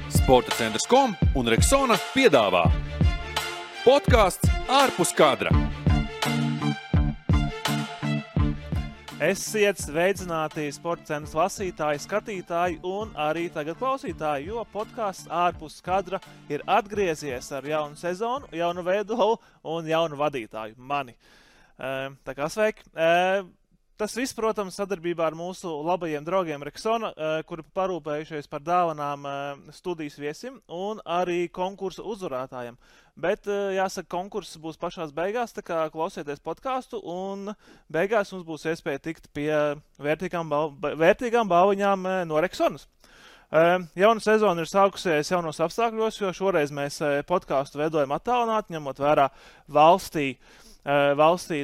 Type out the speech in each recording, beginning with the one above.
Sportacentrs.com un Rexona piedāvā podcasts ārpus kadra. Esiet sveicināti Sportacentrs lasītāji, skatītāji un arī tagad klausītāji, jo podcasts ārpus kadra ir atgriezies ar jaunu sezonu, jaunu veidolu un jaunu vadītāju, mani. Tā kā sveiki! Tas viss, protams, sadarbībā ar mūsu labajiem draugiem Rexona, kuri parūpējušies par dāvanām studijas viesim un arī konkursu uzvarētājiem. Bet, jāsaka, konkurss būs pašās beigās, tā kā klausieties podcastu un beigās mums būs iespēja tikt pie vērtīgām balviņām no Rexonas. Jauna sezona ir sākusies jaunos apstākļos, jo šoreiz mēs podcastu veidojam attālināti, ņemot vērā valstī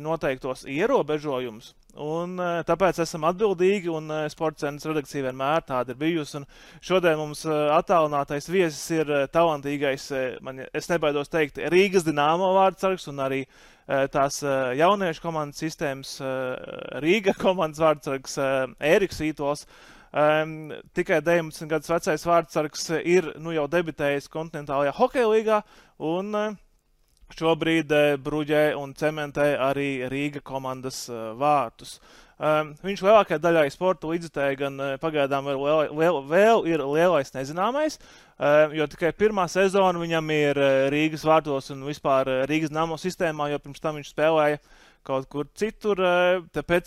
noteiktos ierobežojumus. Un tāpēc esam atbildīgi un Sportacentrs redakcija vienmēr tāda ir bijusi. Un šodien mums attālinātais viesis ir talantīgais, es nebaidos teikt, Rīgas Dinamo vārdsargs un arī tās jauniešu komandas sistēmas Rīga komandas vārdsargs Ēriks Vītols. Tikai 19 gadus vecais vārdsargs ir jau debitējis kontinentālajā hokeja līgā un šobrīd bruģē un cementē arī Rīga komandas vārtus. Viņš lielākajai daļai sporta līdzjutēji gan pagaidām vēl ir lielais nezināmais, jo tikai pirmā sezona viņam ir Rīgas vārtos un vispār Rīgas Dinamo sistēmā, jo pirms tam viņš spēlēja kaut kur citur, tāpēc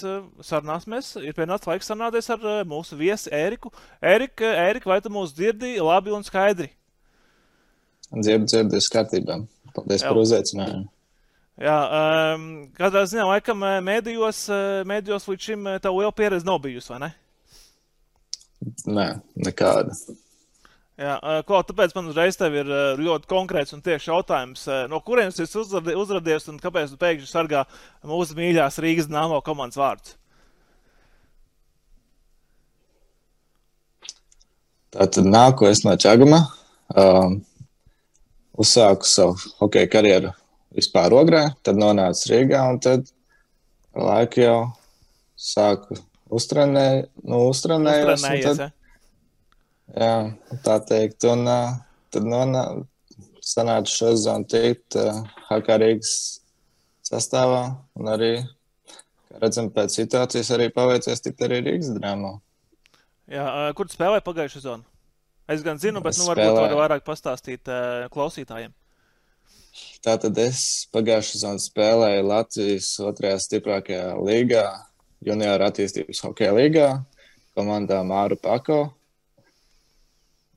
ir pienācis laiks sarunāties ar mūsu viesi Ēriku. Ērika, vai tu mūs dzirdi labi un skaidri? Dzirdu, kārtībā. Paldies par uzaicinājumu. Jā, kādā ziņā, laikam, mēdījos līdz šim tev liela pieredze nav bijusi, vai ne? Nē, nekāda. Jā, tāpēc man uzreiz tev ir ļoti konkrēts un tieši jautājums, no kurienes esi uzradies un kāpēc tu pēkšņi sargā mūsu mīļās Rīgas Dinamo komandas vārdus? Tātad nāku es no Čaguma. Uzsāku savu hokeja karjeru vispār Ogrē, tad nonācu Rīgā un tad laiku jau sāku uztrenējos. Jā, tā teikt. Un tad sanāca šo sezonu tikt HK Rīgas sastāvā un arī, kā redzam, pēc situācijas arī paveicies tikt arī Rīgas Dinamo. Jā, kur tu spēlēji pagājušo sezonu? Es gan zinu, bet varbūt var vairāk pastāstīt klausītājiem. Tātad es pagājušā sezonā spēlēju Latvijas otrajā stiprākajā līgā, junioru attīstības hokeja līgā, komandā Māru Pako.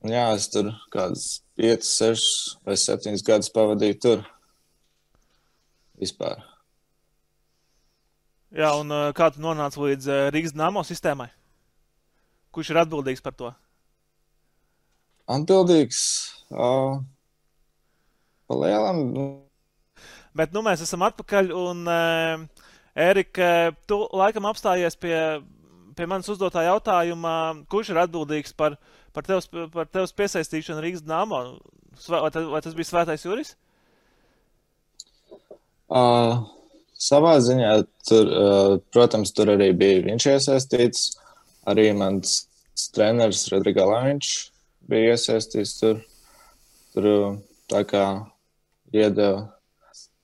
Un jā, es tur kādus 5, 6 vai 7 gadus pavadīju tur vispār. Jā, un kā tu nonāci līdz Rīgas Dinamo sistēmai? Kurš ir atbildīgs par to? Atbildīgs pa lielam. Bet mēs esam atpakaļ un Ērika, tu laikam apstājies pie manas uzdotā jautājuma, kurš ir atbildīgs par tevs piesaistīšanu Rīgas Dinamo? Vai tas bija Svētais Juris? Savā ziņā, protams, tur arī bija viņš iesaistīts, arī mans treneris Rodrigo Laviņš bija iesaistīts tur tā kā iedeva,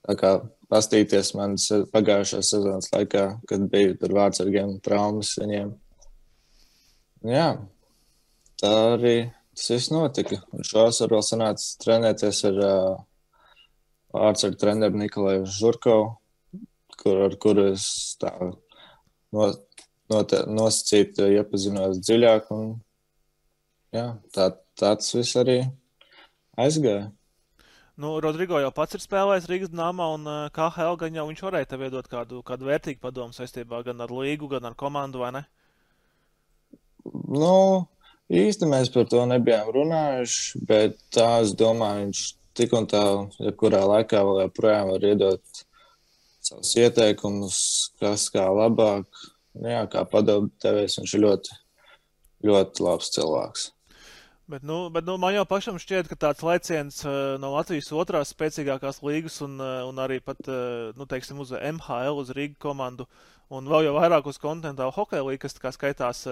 tā kā pastīties manas pagājušās sezonas laikā, kad bija tur vārdsargiem traumas viņiem. Jā, tā arī tas viss notika. Un šovasar vēl sanāca trenēties ar vārdsargu treneru Nikolaju Žurkovu, ar kuru es tā nosacīti iepazinos dziļāk un jā, tāds viss arī aizgāja. Rodrigo jau pats ir spēlējis Rīgas Dinamo un KHL, gan jau viņš varēja tev iedot kādu vērtīgu padomu saistībā gan ar līgu, gan ar komandu, vai ne? Īsti mēs par to nebijām runājuši, bet tā es domāju, viņš tik un tā, jebkurā laikā vēl joprojām var iedot savus ieteikumus, kas kā labāk, jā, kā padomu devējs, viņš ir ļoti, ļoti labs cilvēks. Bet man jau pašam šķiet, ka tāds lēciens no Latvijas otrās spēcīgākās līgas un arī pat, teiksim, uz MHL, uz Rīga komandu Un vēl jau vairāk uz kontinentālu hokeja līgu, kas tā kā skaitās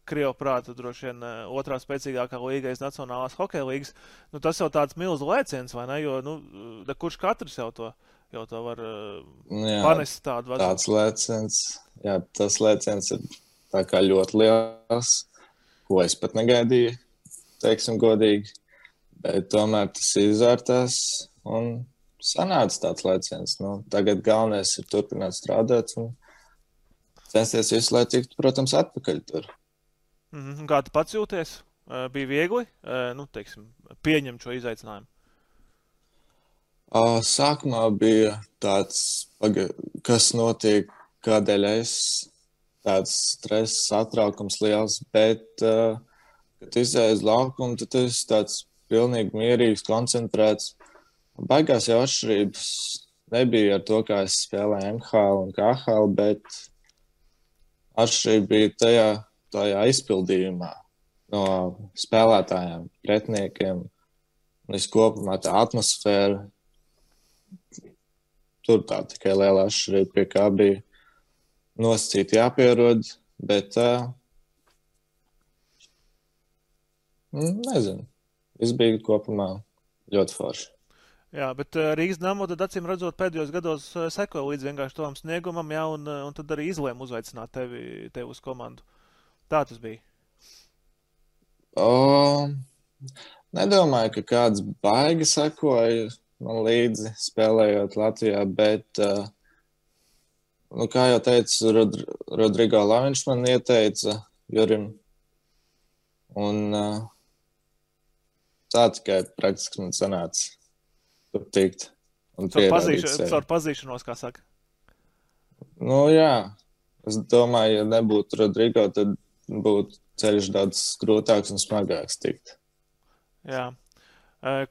Krievu prātu droši vien otrā spēcīgākā līga aiz Nacionālās hokeja līgas. Nu, tas jau tāds milzu lēciens, vai ne? Jo, nu, kurš katrs jau to var panest tādu vazadu. Tāds lēciens, jā, tas lēciens ir tā kā ļoti liels, ko es pat negaidīju, teiksim godīgi. Bet tomēr tas izvērtās un sanāca tāds lēciens. Nu, tagad galvenais ir turpināt strādāt un censties visu, lai tiktu, protams, atpakaļ tur. Kā tu pats jūties? Bija viegli, teiksim, pieņemt šo izaicinājumu? Sākumā bija tāds, kas notiek, kādēļ es tāds stress, satraukums liels, bet, kad izēju uz laukumu, tad es tāds pilnīgi mierīgs, koncentrēts. Baigās jau atšķirības nebija ar to, kā es spēlēju MHL un KHL, bet atšķirība bija tajā izpildījumā no spēlētājiem, pretiniekiem. Un kopumā tā atmosfēra, tur tā tikai liela atšķirība, pie kā bija nosacīti jāpierod, bet nezinu, viss bija kopumā ļoti forši. Jā, bet Rīgas Dynamo tad acīm redzot pēdējos gados sekoja līdz vienkārši tavam sniegumam, jā, un tad arī izlēma uzveicināt tevi uz komandu. Tā tas bija. Nedomāju, ka kāds baigi sekoja man līdzi spēlējot Latvijā, bet, kā jau teicu, Rodrigo Laviņš man ieteica Jurim, un tā tikai praktiski man sanāca. Tur tikt un pierādīt sevi. Caur pazīšanos, kā saka. Nu jā, es domāju, ja nebūtu Rodrigo, tad būtu ceļš daudz grūtāks un smagāks tikt. Jā.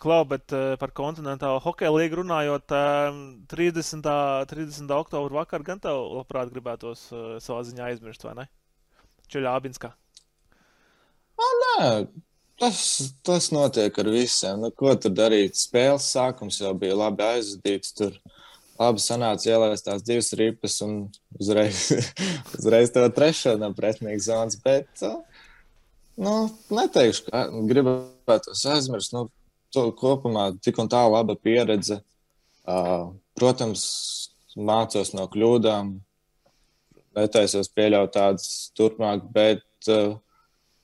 Klau, bet par kontinentālo hokeja līgu runājot, 30. oktobra vakar gan tev labprāt gribētos savā ziņā aizmirst, vai ne? Čeļābinskā. Nē. Tas notiek ar visiem. Nu, ko tur darīt? Spēles sākums jau bija labi aizvadīts. Tur labi sanāca ielaist tās 2 ripas un uzreiz to 3. no pretinieka zonas. Bet, neteikšu, ka gribētos aizmirst. Kopumā tik un tā laba pieredze. Protams, mācos no kļūdām. Netaisos pieļaut tādas turpmāk, bet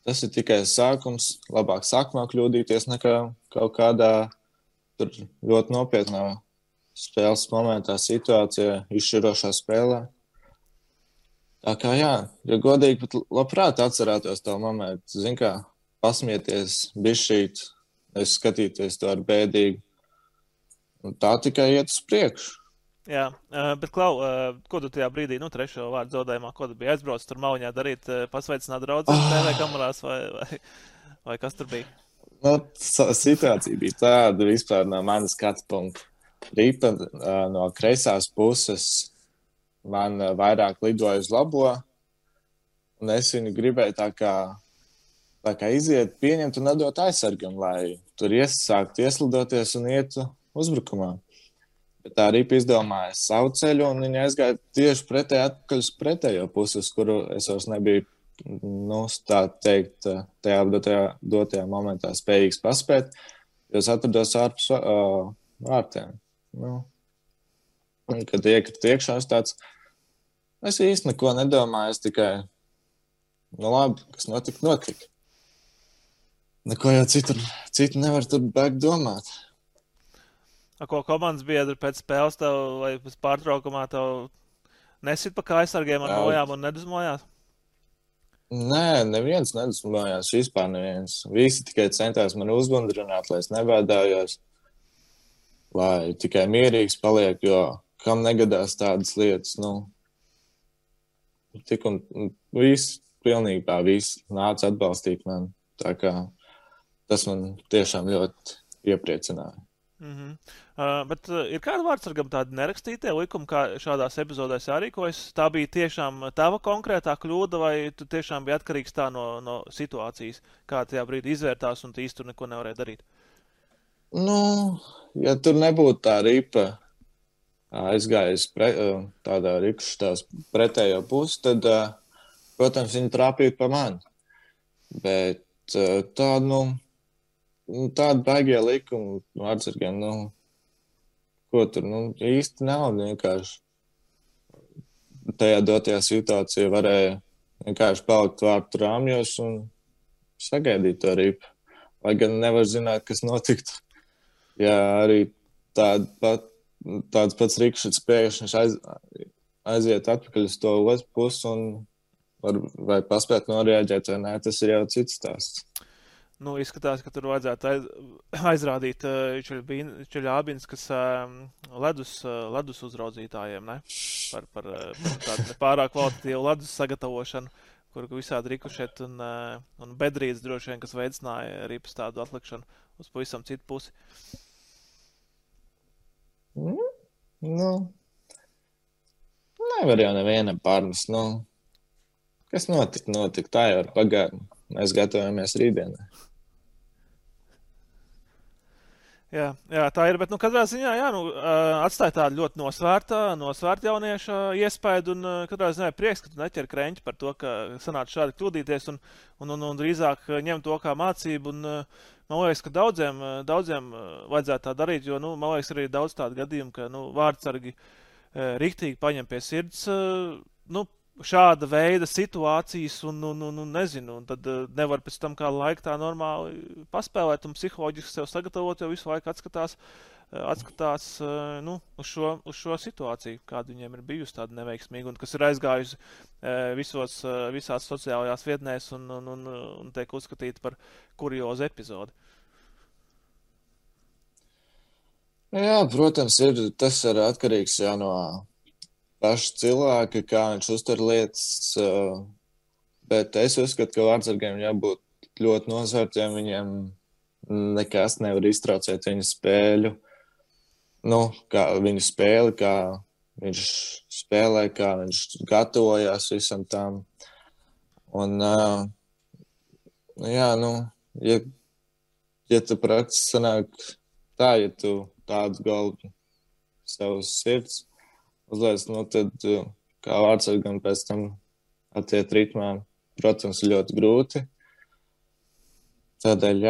tas ir tikai sākums. Labāk sākumā kļūdīties nekā kaut kādā tur ļoti nopietnā spēles momentā, situācijā, izšķirošā spēlē. Tā kā jā, ja godīgi, pat labprāt atcerētos to momentu. Zin kā, pasmieties, bišķīt, es skatīties to ar bēdīgu. Un tā tikai iet uz priekšu. Jā, bet Klau, ko tu tajā brīdī, 3. vārdu zaudējumā, ko tu biji aizbraucis tur Mauņā darīt, pasveicināt draudzes TV kamerās vai kas tur bija? Situācija bija tāda vispār no manas skatu punkta. Ripa no kreisās puses man vairāk lidoja uz labo, un es viņu gribēju tā kā iziet, pieņemt un atdot aizsargam, lai tur sāktu ieslidoties un ietu uzbrukumā. Bet tā ripa izdomāja savu ceļu, un viņa aizgāja tieši atpakaļ uz pretējo pusi, uz kuru es vairs nebiju, tā teikt, tajā dotajā momentā spējīgs paspēt, jo es atrados ārpus vārtiem. Un, kad iekrita iekšā, es īsti neko nedomāju, es tikai, labi, kas notika. Neko jau citu nevar tur bēgt domāt. Ko komandas biedri pēc spēles tev vai pēc pārtraukumā tev nesit pa kājsargiem ar nojām un nedusmojās? Nē, neviens nedusmojās, vispār neviens. Visi tikai centās man uzbundrināt, lai es nebēdājos, lai tikai mierīgs paliek, jo kam negadās tādas lietas, tik un visi, pilnībā visi nāca atbalstīt mani. Tā kā tas man tiešām ļoti iepriecināja. Bet ir kāda vārdsargam tāda nerakstītie likumi, kā šādās epizodēs jārīkojas? Tā bija tiešām tava konkrētā kļūda, vai tu tiešām bija atkarīgs tā no situācijas, kā tajā brīdī izvērtās un tu īsti tur neko nevarēja darīt? Ja tur nebūtu tā ripa aizgājis tādā rikšķitās pretējo pusi, tad, protams, viņi trāpīja pa mani. Bet tāda baigie likuma vārdsargiem, ko tur, īsti nav vienkārši. Tajā dotajā situācijā varēja vienkārši palikt vārtu rāmjos un sagaidīt to ripu. Lai gan nevar zināt, kas notiktu. Ja arī tāds pats rikšķits pēkšņi aiziet atpakaļ uz to otru pusi un vai paspēt noreaģēt vai nē, tas ir jau cits stāsts. Izskatās, ka tur vajadzētu aizrādīt Čeļābins, kas ledus uzraudzītājiem, ne? Par tādu nepārāk kvalitatīvu ledus sagatavošanu, kur visādi rikušet un bedrīts droši vien, kas veicināja ripas tādu atlikšanu uz pavisam citu pusi. Nevar jau nevienam pārmest, kas notika, tā jau ir pagātne. Mēs gatavojamies rītdienai. Jā, tā ir, bet katrā ziņā, atstāja tādu ļoti nosvērta jaunieša iespaidu un katrā ziņā prieks, ka tu neķer kreņķi par to, ka sanāca šādi kļūdīties un drīzāk ņem to kā mācību un man liekas, ka daudziem vajadzētu tā darīt, jo, man liekas, arī daudz tādu gadījumu, ka, vārdsargi riktīgi paņem pie sirds, šāda veida situācijas un nezinu, un tad nevar pēc tam kā laika tā normāli paspēlēt un psiholoģiski sev sagatavot, jo visu laiku atskatās uz šo situāciju, kāda viņiem ir bijusi tāda neveiksmīga un kas ir aizgājusi visās sociālajās vietnēs un tiek uzskatīta par kuriozu epizodi. Jā, protams, tas ir atkarīgs jau no paši cilvēki, kā viņš uztver lietas, bet es uzskatu, ka vārdsargiem jābūt ļoti nosvērtiem, viņiem nekas nevar iztraucēt viņu spēļu, kā viņu spēli, kā viņš spēlē, kā viņš gatavojās visam tam. Un, ja tu praktiski sanāk tā, ja tu tādu galvu savus sirds uzliec, tad kā vārdsargam pēc tam attiet ritmā, protams, ļoti grūti. Tādēļ,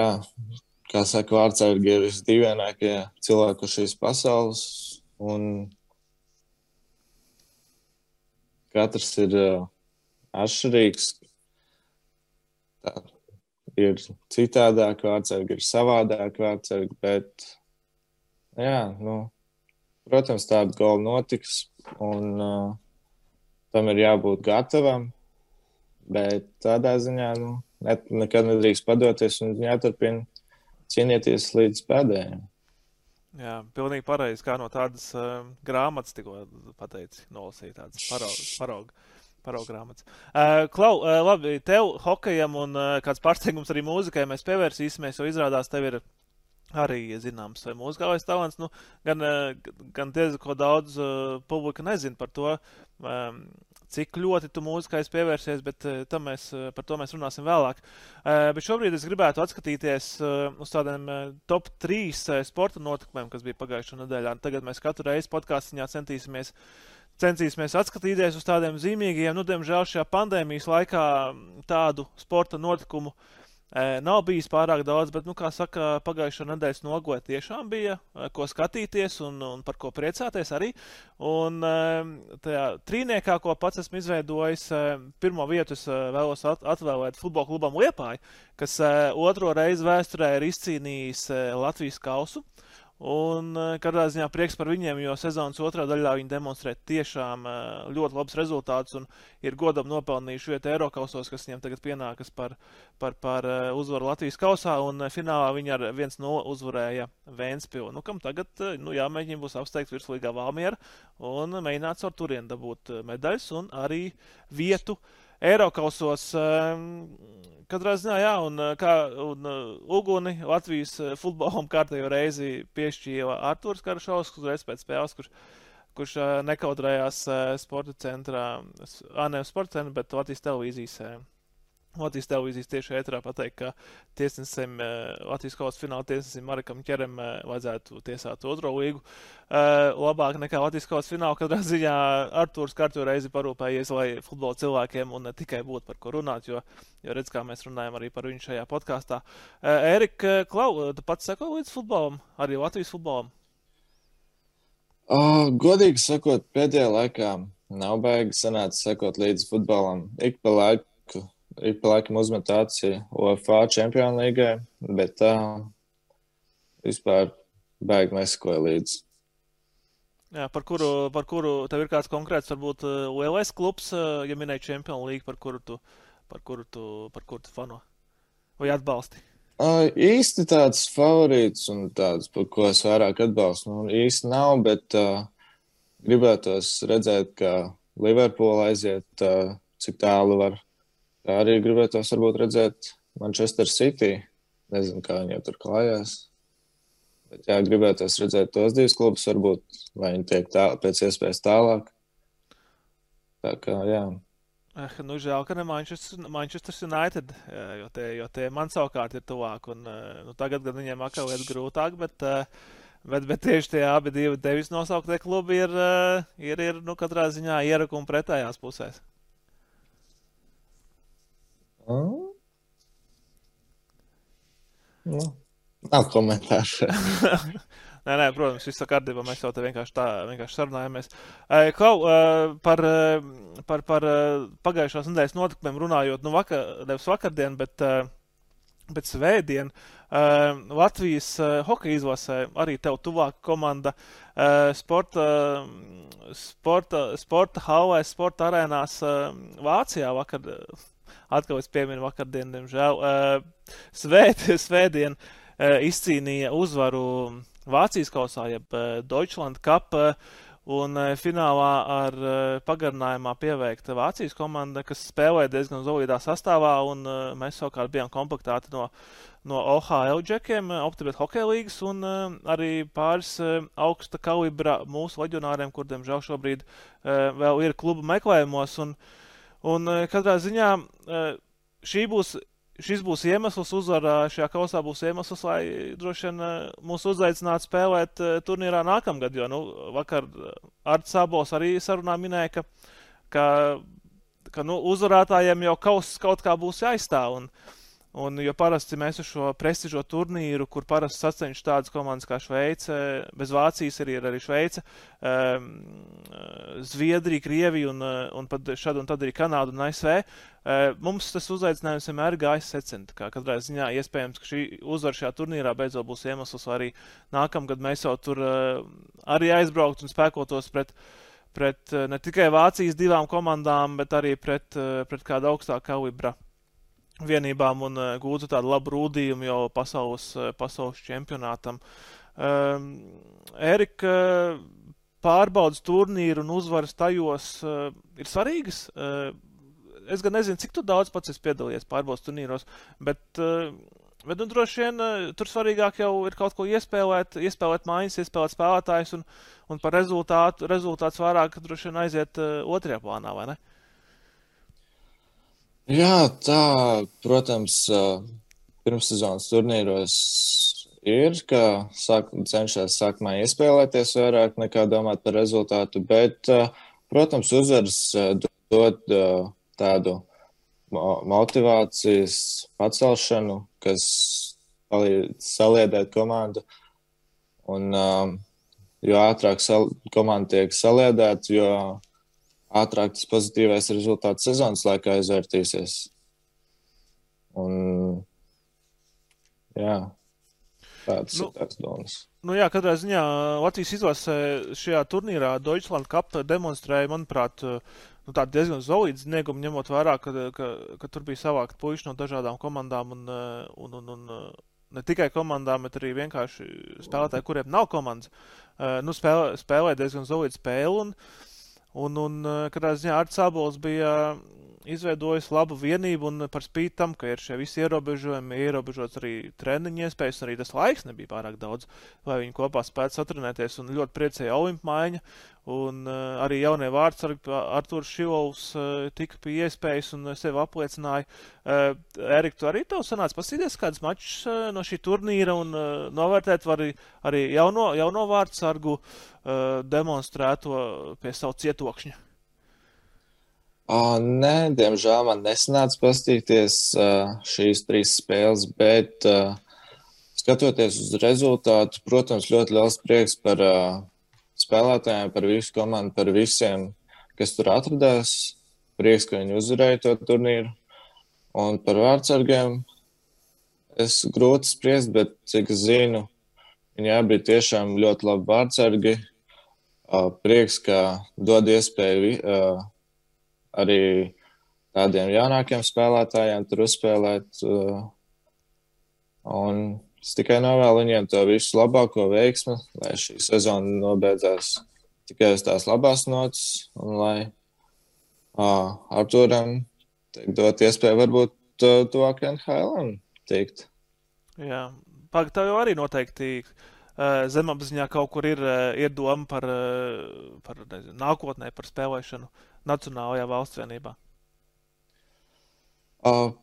kā saka, vārdsargi ir visdīvainākie cilvēki uz šīs pasaules, un katrs ir atšķirīgs. Tā ir citādāk vārdsargi, ir savādāk vārdsargi, bet, protams, tāda gola notiks, un tam ir jābūt gatavam, bet tādā ziņā nekad nedrīkst padoties un jāturpina cīnīties līdz pēdējiem. Jā, pilnīgi pareizi, kā no tādas grāmatas tikko pateici, nolasīja tādas parauga grāmatas. Klau, labi, tev hokejam un kāds pārsteigums arī mūzikai mēs pievērsīsimies, jo izrādās tev ir arī zināms mūzikālais talants, gan diezgan ko daudz publika nezina par to, cik ļoti tu mūzikais pievērsies, bet par to mēs runāsim vēlāk. Bet šobrīd es gribētu atskatīties uz tādiem top 3 sporta notikumiem, kas bija pagājušā nedēļā. Tagad mēs katru reizi podcastiņā censīsimies atskatīties uz tādiem zīmīgiem. Diemžēl šajā pandēmijas laikā tādu sporta notikumu nav bijis pārāk daudz, bet, kā saka, pagājušā nedēļas nogoja tiešām bija, ko skatīties un par ko priecāties arī. Un tajā trīniekā, ko pats esmu izveidojis, pirmo vietu es vēlos atvēlēt futbola klubam Liepāja, kas otro reizi vēsturē ir izcīnījis Latvijas kausu. Un katrā ziņā prieks par viņiem, jo sezonas otrā daļā viņi demonstrē tiešām ļoti labs rezultātus un ir godam nopelnījuši vietu Eirokausos, kas viņiem tagad pienākas par uzvaru Latvijas kausā, un finālā viņi ar 1-0 uzvarēja Ventspilu. Kam tagad jāmēģina būs apsteigt virslīgā Valmiera un mēģināt ar turienu dabūt medaļas un arī vietu Eirokausos. Katrā ziņā, un uguni Latvijas futbolam kārtējo reizi piešķīja Artūrs Karašovs, uzreiz pēc spēles, kurš nekautrējās sporta centrā, nevis sporta centrā, bet Latvijas televīzijas Latvijas televīzijas tieši ēterā pateikt, ka tiesnesim, Latvijas kausa fināla tiesnesim Marekam Ķerem vajadzētu tiesāt otro līgu. Labāk nekā Latvijas kausa fināla, katrā ziņā Artūrs kārto reizi parūpējies, lai futbola cilvēkiem un ne tikai būtu par ko runāt, jo redz, kā mēs runājam arī par viņu šajā podkāstā. Ērika, Klau, tu pats seko līdz futbolam, arī Latvijas futbolam? Godīgi sakot, pēdējā laikā nav baigi sanāca sekot līdz futbolam. Ik pa laikam uzmet aci UEFA Čempionu līgai, bet vispār baigi nesekoja līdzi. Jā, par kuru tev ir kāds konkrēts, varbūt lielais klubs, ja minēji Čempionu līgu, par kuru tu fano vai atbalsti? Īsti tāds favorīts un tāds, par ko es vairāk atbalstu, īsti nav, bet gribētos redzēt, ka Liverpoola aiziet, cik tālu var. Tā arī gribētos varbūt redzēt Manchester City. Nezinu, kā viņi jau tur klājās. Bet jā, gribētos redzēt tos divus klubus, varbūt, vai viņi tiek pēc iespējas tālāk. Tā kā, jā. Nu, žēl, ka ne Manchester United, jo tie man savukārt ir tuvāk. Un, tagad gan viņiem atkal iet grūtāk, bet tieši tie abi divi tevis nosauktie klubi ir katrā ziņā ierakumi pretējās pusēs. Nav komentāru. Nē, protams, viss kārtībā, mēs jau te vienkārši sarunājamies. Klau, par pagājušās nedēļas notikumiem runājot, nevis vakardien, bet svētdien, Latvijas hokeja izlasē arī tev tuvāka komanda sporta hallēs, sporta arēnās Vācijā vakar. Atkal es pieminu vakardien, diemžēl. Svētdien izcīnīja uzvaru Vācijas kausā, jeb Deutschland Cup, un finālā ar pagarinājumā pieveikta Vācijas komanda, kas spēlēja diezgan solidā sastāvā, un mēs savukārt bijām komplektēti no OHL džekiem, Optibet hokeja līgas, un arī pāris augsta kalibra mūsu leģionāriem, kur, diemžēl, šobrīd vēl ir klubu meklējumos, un katrā ziņā šis būs iemesls, uzvarā šajā kausā būs iemesls, lai droši vien mūs uzaicinātu spēlēt turnīrā nākamgad, jo vakar Arts Sābols arī sarunā minēja, ka uzvarētājiem jau kaut kā būs jāizstāv. Un jo parasti mēs uz šo prestižo turnīru, kur parasti sacenš tādas komandas kā Šveice, bez Vācijas ir arī Šveice, Zviedrija, Krievija un šad un tad arī Kanāda un ASV, mums tas uzaicinājums vienmēr gājis secent. Katrā ziņā iespējams, ka šī uzvara šajā turnīrā beidzot būs iemesls, arī nākamgad mēs jau tur arī aizbraukt un spēkotos pret ne tikai Vācijas divām komandām, bet arī pret kādu augstāku kalibra vienībām un gūtu tādu labu rūdījumu jau pasaules čempionātam. Ērika, pārbaudas turnīru un uzvaras tajos ir svarīgas. Es gan nezinu, cik tu daudz pats esi piedalījies pārbaudas turnīros, bet droši vien tur svarīgāk jau ir kaut ko iespēlēt mājas, iespēlēt spēlētājus un par rezultāts vairāk droši vien aiziet otrajā plānā, vai ne? Jā, tā, protams, pirmssezonas turnīros ir, ka cenšas sākumā iespēlēties vairāk nekā domāt par rezultātu, bet, protams, uzvaras dod tādu motivācijas pacelšanu, kas palīdz saliedēt komandu. Un jo ātrāk komanda tiek saliedēta, jo ātrāk tas pozitīvais rezultāts sezonas laikā izvērtīsies. Un, jā, tāds ir tās domas. Jā, katrā ziņā Latvijas izlasē šajā turnīrā Deutschland Cup demonstrēja, manuprāt, tādu diezgan solīdu sniegumu, ņemot vērā, ka tur bija savākt puiši no dažādām komandām un ne tikai komandām, bet arī vienkārši spēlētāji, kuriem nav komandas. Spēlēja diezgan solīdu spēli un katrā ziņā Arts Sābols bija izveidojis labu vienību un par spīti tam, ka ir šie visi ierobežojumi, ierobežots arī treniņu iespējas, un arī tas laiks nebija pārāk daudz, lai viņi kopā spētu satrenēties, un ļoti priecēja Olimpa maiņa, un arī jaunie vārdsargi Artūrs Šilovs tika pie iespējas un sevi apliecināja. Erika, tu arī tev sanāca pasīties kādas mačus no šī turnīra un novērtēt var arī jauno vārdsargu demonstrēto pie savu cietokšņa? Nē, diemžēl man nesanāca pastīties šīs 3 spēles, bet skatoties uz rezultātu, protams, ļoti liels prieks par spēlētājiem, par visu komandu, par visiem, kas tur atradās. Prieks, ka viņi uzvarēja to turnīru. Un par vārdsargiem es grūti spriest, bet cik zinu, viņi bija tiešām ļoti labi vārdsargi. Prieks, ka dod iespēju arī tādiem jaunākiem spēlētājiem tur uzspēlēt. Un es tikai novēlu viņiem to visu labāko veiksmi, lai šī sezona nobeidzās tikai uz tās labās notas un lai Artūram dot iespēju varbūt tuvāk NHL tikt. Jā, tev jau arī noteikti zemapziņā kaut kur ir doma par nākotnē, par spēlēšanu Nacionālajā valsts vienībā?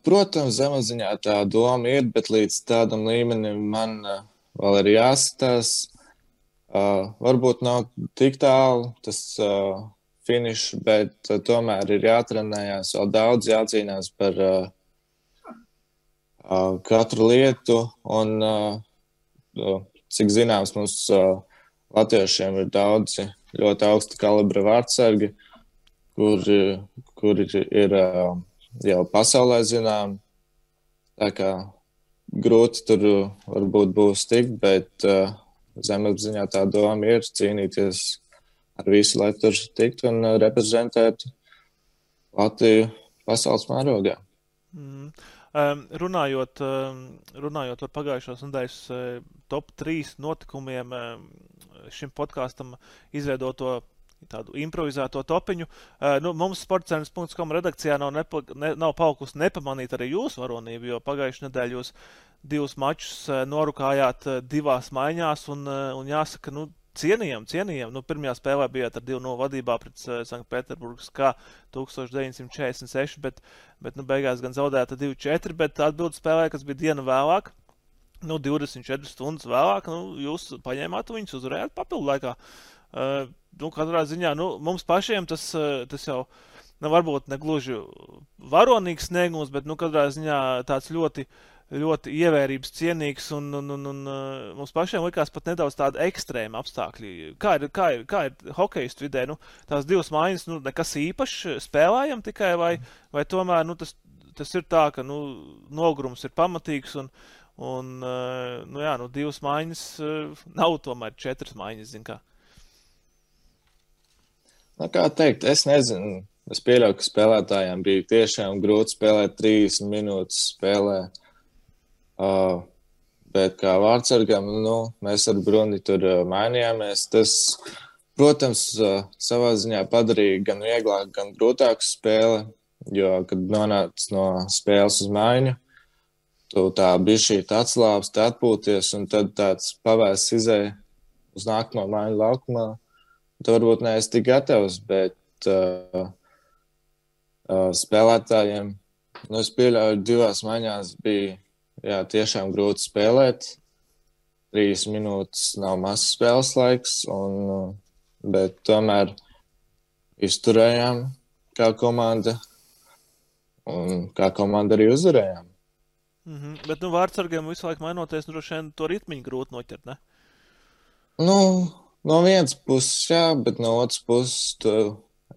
Protams, zemapziņā tā doma ir, bet līdz tādam līmenim man vēl ir jāskatās. Varbūt nav tik tālu tas finišs, bet tomēr ir jātrenējās, vēl daudz jācīnās par katru lietu. Un, cik zināms, mums latviešiem ir daudzi ļoti augsta kalibra vārdsargi, kuri ir jau pasaulē zinām. Tā kā grūti tur varbūt būs tikt, bet zemapziņā tā doma ir cīnīties ar visu, lai tur tiktu un reprezentētu Latviju pasaules mērogā. Runājot par pagājušās nedēļas top 3 notikumiem šim podkastam izveidoto tādu improvizēto topiņu. Mums sportcenas.com redakcijā nav palikusi nepamanīt arī jūsu varonību, jo pagājušajā nedēļā jūs 2 mačus norukājāt 2 maiņās un jāsaka, cienījam. Pirmajā spēlē bijāt ar 2-0 vadībā pret Sanktpēterburgas kā 1946, bet beigās gan zaudēta 2-4, bet atbildu spēlē, kas bija diena vēlāk, 24 stundas vēlāk, jūs paņēmāt viņus, uzvarējāt papildu laikā. Katrā ziņā, mums pašiem tas jau varbūt negluži varonīgs sniegums, bet katrā ziņā tāds ļoti, ļoti ievērības cienīgs un mums pašiem likās pat nedaudz tādi ekstrēmi apstākļi. Kā ir hokejistu vidē? Tās 2 maiņas, nekas īpašs spēlējam tikai vai tomēr, tas ir tā, ka, nogurums ir pamatīgs un 2 maiņas nav tomēr 4 maiņas, zin kā. Kā teikt, es nezinu. Es pieļauju, ka spēlētājiem bija tiešām grūti spēlēt 30 minūtes spēlē. Bet kā vārdsargam, mēs ar Bruni tur mainījāmies. Tas, protams, savā ziņā padarīja gan vieglāk, gan grūtāku spēli, jo, kad nonāc no spēles uz maiņu, tu tā bišķīt atslābst, atpūties, un tad tāds pavēsts izēja uz nākamo maiņu laukumā. Tu varbūt neesi tik gatavs, bet spēlētājiem, es pieļauju, 2 maiņās bija tiešām grūti spēlēt. 3 minūtes nav mazs spēles laiks, bet tomēr izturējām kā komanda un kā komanda arī uzvarējām. Bet vārdsargiem visu laiku mainoties, droši vien to ritmiņu grūti noķert, ne? No vienas puses, jā, bet no otras puses tu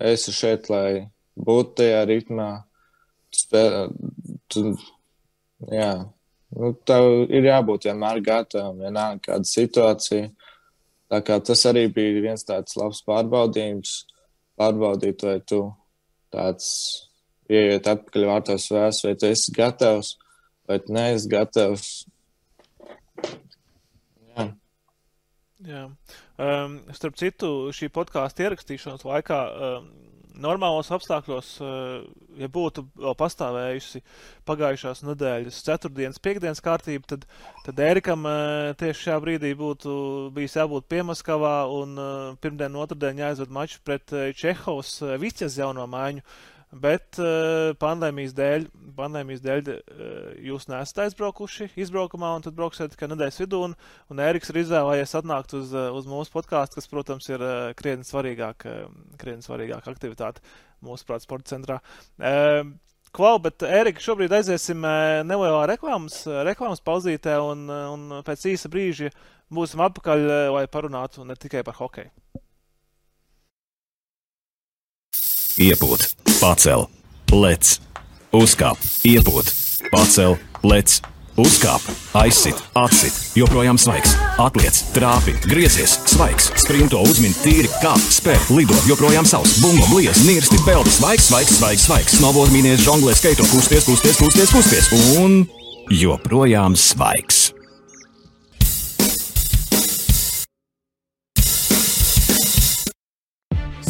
esi šeit, lai būtu tajā ritmā. Tev ir jābūt vienmēr gatavam, vienalga kāda situācija. Tā kā tas arī bija viens tāds labs pārbaudījums. Pārbaudīt, vai tu tāds ieiet atpakaļ vārtos vēs, vai tu esi gatavs, vai tu neesi gatavs. Jā. Starp citu, šī podkāsta ierakstīšanas laikā normālos apstākļos, ja būtu vēl pastāvējusi pagājušās nedēļas ceturtdienas, piekdienas kārtība, tad Ērikam tieši šajā brīdī būtu bijis jābūt Piemaskavā un pirmdien, otrdien jāizved mačs pret Čehovas Viķes jauno maiņu. Bet pandēmijas dēļ jūs neesat aizbraukuši izbraukumā un tad brauksiet tikai nedēļas vidū. Un Ēriks ir izvēlējies atnākt uz mūsu podkāstu, kas, protams, ir krietni svarīgāka aktivitāte mūsuprāt sporta centrā. Klau, bet Ērika, šobrīd aiziesim nelielā reklāmas pauzītē un pēc īsa brīža būsim atpakaļ, lai parunātu ne tikai par hokeju. Iepūt, pacel, lec, uzkāp, iepūt, pacel, lec, uzkāp, aizsit, atsit, joprojām svaigs, atliec, trāpi, griezies, svaigs, sprinto, uzmin, tīri, kāp, spēr, lido, joprojām savs, bumbo, bliez, nirsti, peldi, svaigs, snowboard, mīnies, žonglē, skaito, kusties, un joprojām svaigs.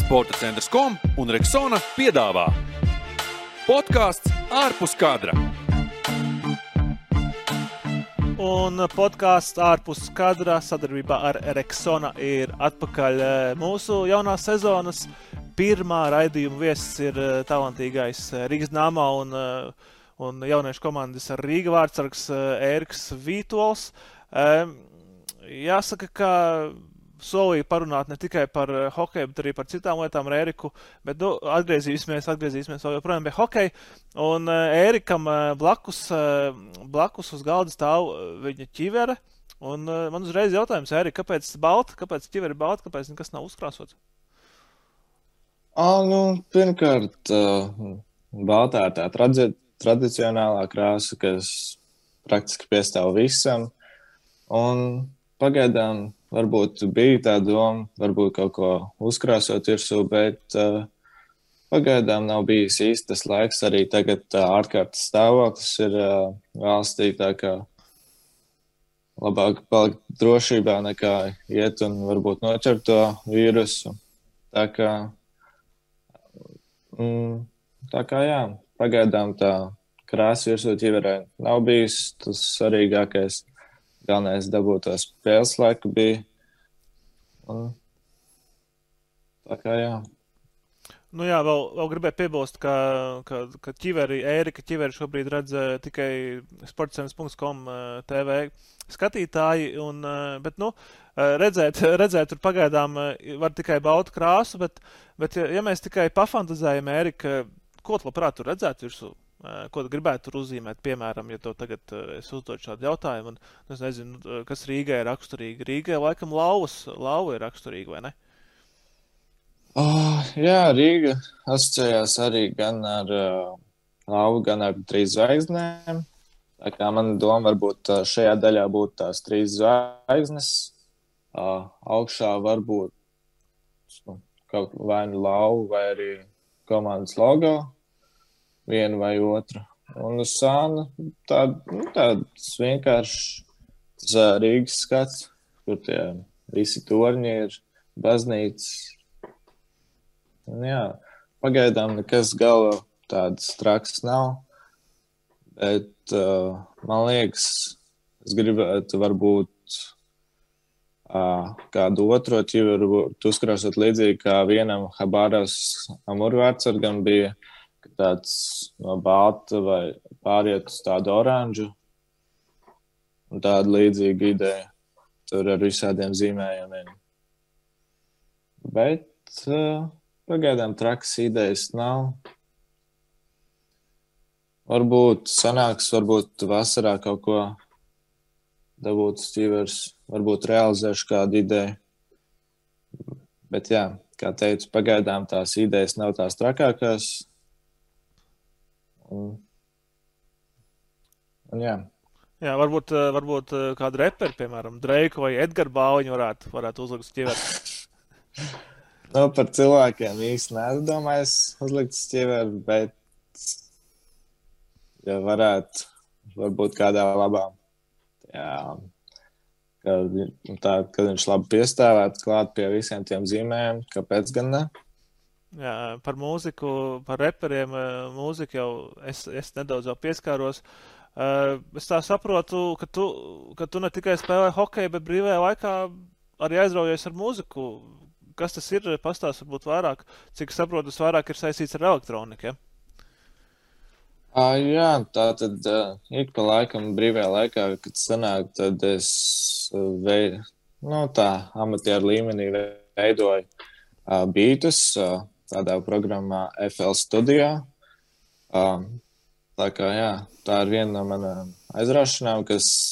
Sporta centrs.com un Rexona piedāvā podkāsts ārpus kadra. Un podkāsts ārpus kadra sadarbībā ar Rexona ir atpakaļ. Mūsu jaunās sezonas pirmā raidījuma viesis ir talantīgais Rīgas Dynamo un jauniešu komandas Rīga vārdsargs Ēriks Vītols. Jāsaka, ka solīja parunāt ne tikai par hokeju, bet arī par citām lietām ar Ēriku, bet atgriezīsimies vēl joprojām pie hokeja. Un Ērikam blakus uz galda stāv viņa ķivere. Un man uzreiz jautājums, Ērika, kāpēc balta? Kāpēc ķivere ir balta? Kāpēc nekas nav uzkrāsots? Pirmkārt, baltā ir tā tradicionālā krāsa, kas praktiski piestāv visam. Un pagaidām varbūt bija tā doma, varbūt kaut ko uzkrāsot virsū, bet pagaidām nav bijis īstas laiks. Arī tagad ārkārtas stāvoklis ir valstī, tā kā labāk palikt drošībā nekā iet un varbūt noķert to vīrusu. Tā kā jā, pagaidām tā krāsa virsū ķiverē nav bijis tas svarīgākais. Galvenais dabūt to spēles laiku bija. Tā kā jā. Nu jā, vēl gribēju piebilst, ka Ērika ķiveri šobrīd redz tikai sportcentrs.com TV skatītāji, bet redzēt tur pagaidām var tikai baltu krāsu, bet ja mēs tikai pafantazējam, Ērika, ko tu labprāt tur redzētu virsū? Ko tu gribētu tur uzzīmēt, piemēram, ja tev tagad es uzdodu šādu jautājumu, un es nezinu, kas Rīgai ir raksturīgi. Rīgai laikam lauva ir raksturīga, vai ne? Jā, Rīga asociējās arī gan ar lauvu, gan ar 3 zvaigznēm. Tā kā mana doma varbūt šajā daļā būtu tās 3 zvaigznes. Augšā varbūt kaut vai nu lauva, vai arī komandas logo. Vienu vai otru. Un uz sāna tāds vienkārši Rīgas skats, kur tie visi torņi ir, baznīcas. Un jā, pagaidām nekas galva tāds traks nav, bet man liekas, es gribētu varbūt kādu otro ķiveru uzkrāsot līdzīgi, kā vienam Habārovs Amurvārdsargam bija, tāds no balta vai pāriet uz tādu oranžu. Un tāda līdzīga ideja. Tur ar visādiem zīmējumiem. Bet pagaidām trakas idejas nav. Varbūt sanāks, varbūt vasarā kaut ko dabūt uz ķivers. Varbūt realizēšu kādu ideju. Bet jā, kā teicu, pagaidām tās idejas nav tās trakākās. Un jā. Jā, varbūt kādu reperi, piemēram, Dreiku vai Edgara Bauņu varētu uzlikt uz ķiveri. Par cilvēkiem īsti nedomājis uzlikt uz ķiveri, bet ja varētu, varbūt kādā labā. Jā, kad viņš labi piestāvētu klāt pie visiem tiem zīmējiem, kāpēc gan ne? Jā, par mūziku, par reperiem, mūziku jau es nedaudz jau pieskāros. Es tā saprotu, ka tu ne tikai spēlē hokeju, bet brīvajā laikā arī aizraujies ar mūziku. Kas tas ir? Pastāst varbūt vairāk. Cik saprotu, tas vairāk ir saistīts ar elektroniku, ja? Jā, tā tad ik pa laikam brīvajā laikā, kad sanāk, tad es amatieru līmenī veidoju beatus tādā programmā FL Studio. Tā kā, jā, tā ir viena no manām aizraušanām, kas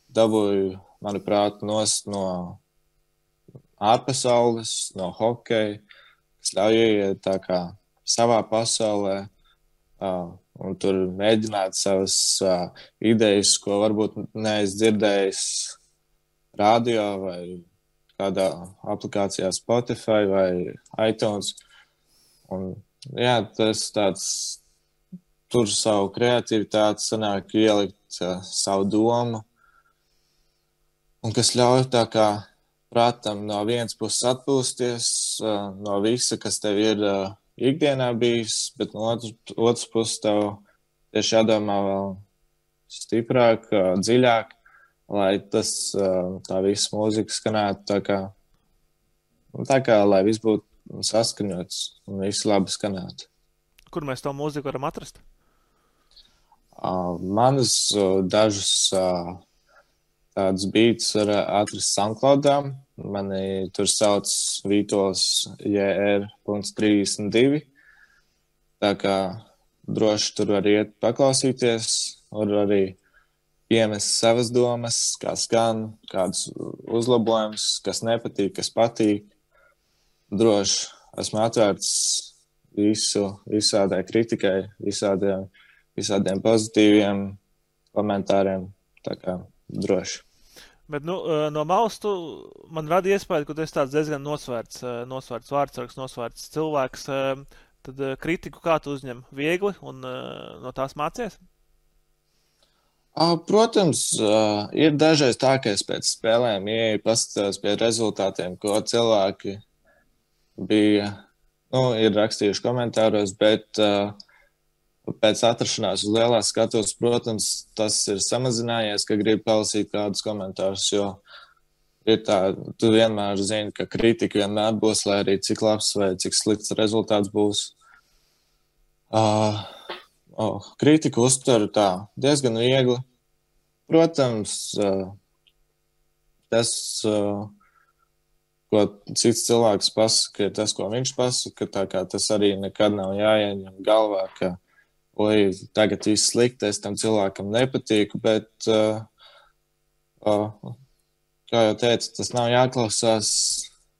dabūju, manuprāt, nost no ārpasaules, no hokeja, kas ļauj ieiet tā kā savā pasaulē un tur mēģināt savas idejas, ko varbūt neesmu dzirdējis radio vai kādā aplikācijā Spotify vai iTunes. Un, jā, tas tāds tur savu kreativitāti sanāk ielikt savu domu, un kas ļauj tā kā prātam no vienas puses atpūsties no visa, kas tev ir ikdienā bijis, bet no otras puses tev tieši jādomā vēl stiprāk, dziļāk, lai tā visa mūzika skanētu tā kā lai viss būtu saskaņots un viss labi skanētu. Kur mēs to mūziku varam atrast? Manas dažus tādus beats var atrast SoundCloudā. Mani tur sauc Vītols JR.32. Tā kā droši tur var iet paklausīties, var arī piemest savas domas, kā skan, kādus uzlabojumus, kas nepatīk, kas patīk. Droši esmu atvērts visādai kritikai, visādiem pozitīviem komentāriem, tā kā droši. Bet, no malas man rada iespēju, ka tu esi tāds diezgan nosvērts vārdsargs, nosvērts cilvēks. Tad kritiku kā tu uzņem? Viegli un no tās mācies? Protams, ir dažreiz tā, ka es pēc spēlēm ieeju paskatās pie rezultātiem, ko cilvēki ir rakstījuši komentāros, bet pēc atrašanās uz lielās skatuves, protams, tas ir samazinājies, ka grib palasīt kādus komentārus, jo ir tā, tu vienmēr zini, ka kritika vienmēr būs, lai arī cik labs vai cik slikts rezultāts būs. Kritiku uztveru tā diezgan viegli. Protams, tas, ko cits cilvēks pasaka, ir tas, ko viņš pasaka, tā kā tas arī nekad nav jāieņem galvā, ka tagad viss slikti, es tam cilvēkam nepatīku, bet, kā jau teicu, tas nav jāklausās,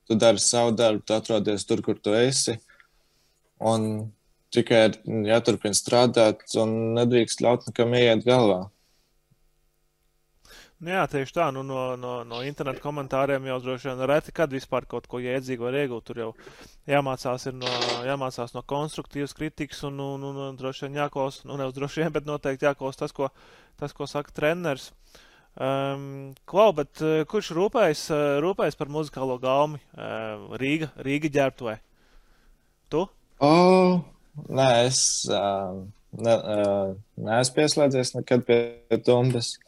tu dari savu darbu, tu atrodies tur, kur tu esi, un tikai jāturpina strādāt, un nedrīkst ļaut nekam ieiet galvā. Jā, tieši tā, no interneta komentāriem jau droši vien reti, kad vispār kaut ko jēdzīgu var iegūt, tur jau jāmācās no konstruktīvas kritikas un droši vien jāklaus, nevis droši vien, bet noteikti jāklaus tas, ko saka treneris. Klau, bet kurš rūpējas par muzikālo gaumi? Rīga ģērbtuvē? Tu? Nē, es neesmu pieslēdzies nekad pie tumbas.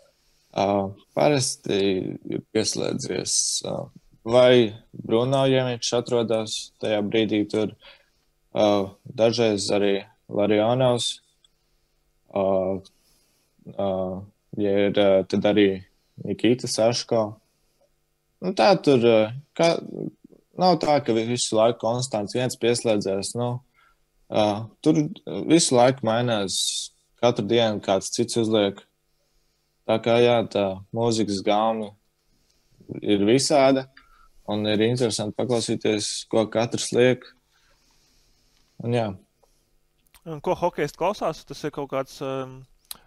Parasti ir pieslēdzies vai Bruno, ja viņš atrodas tajā brīdī tur, dažreiz arī Larionovs, ja ir tad arī Nikita Saško. Nu, tā tur nav tā, ka visu laiku konstants viens pieslēdzēs. Tur visu laiku mainās, katru dienu kāds cits uzliek. Tā kā jā, tā mūzikas gauma ir visāda un ir interesanti paklausīties, ko katrs liek. Un jā. Un ko hokejs klausās? Tas ir kaut kāds,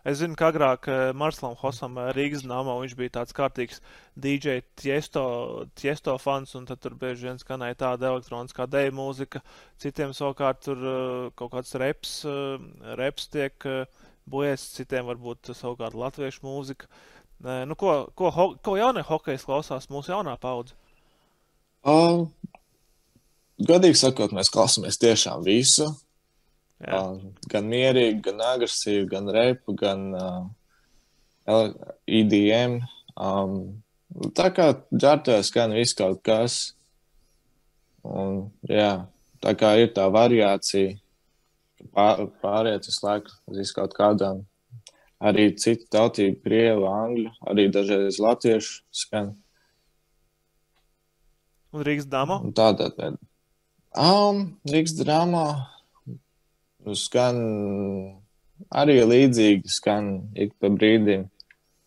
es zinu, ka agrāk Marslam Hosam Rīgas Dinamo viņš bija tāds kārtīgs DJ Tiesto fans, un tad tur bieži vien skanēja tāda elektroniskā deju mūzika, citiem savukārt tur kaut kāds reps tiek bojies, citiem varbūt savukārt latviešu mūzika. Ko jaunie hokejs klausās mūsu jaunā paudze? godīgi sakot, mēs klausāmies tiešām visu. Jā. Gan mierīgi, gan agresīvi, gan repu, gan EDM. Tā kā ģērbtuvē skan viss kaut kas. Un, jā, tā kā ir tā variācija, pāriet visu laiku uz kaut kādām. Arī citu tautību, krievu, angļu, arī dažreiz latviešu skan. Un Rīgas dāmo? Tādā veidā. Rīgas dāmo skan arī līdzīgi, skan ik pa brīdim.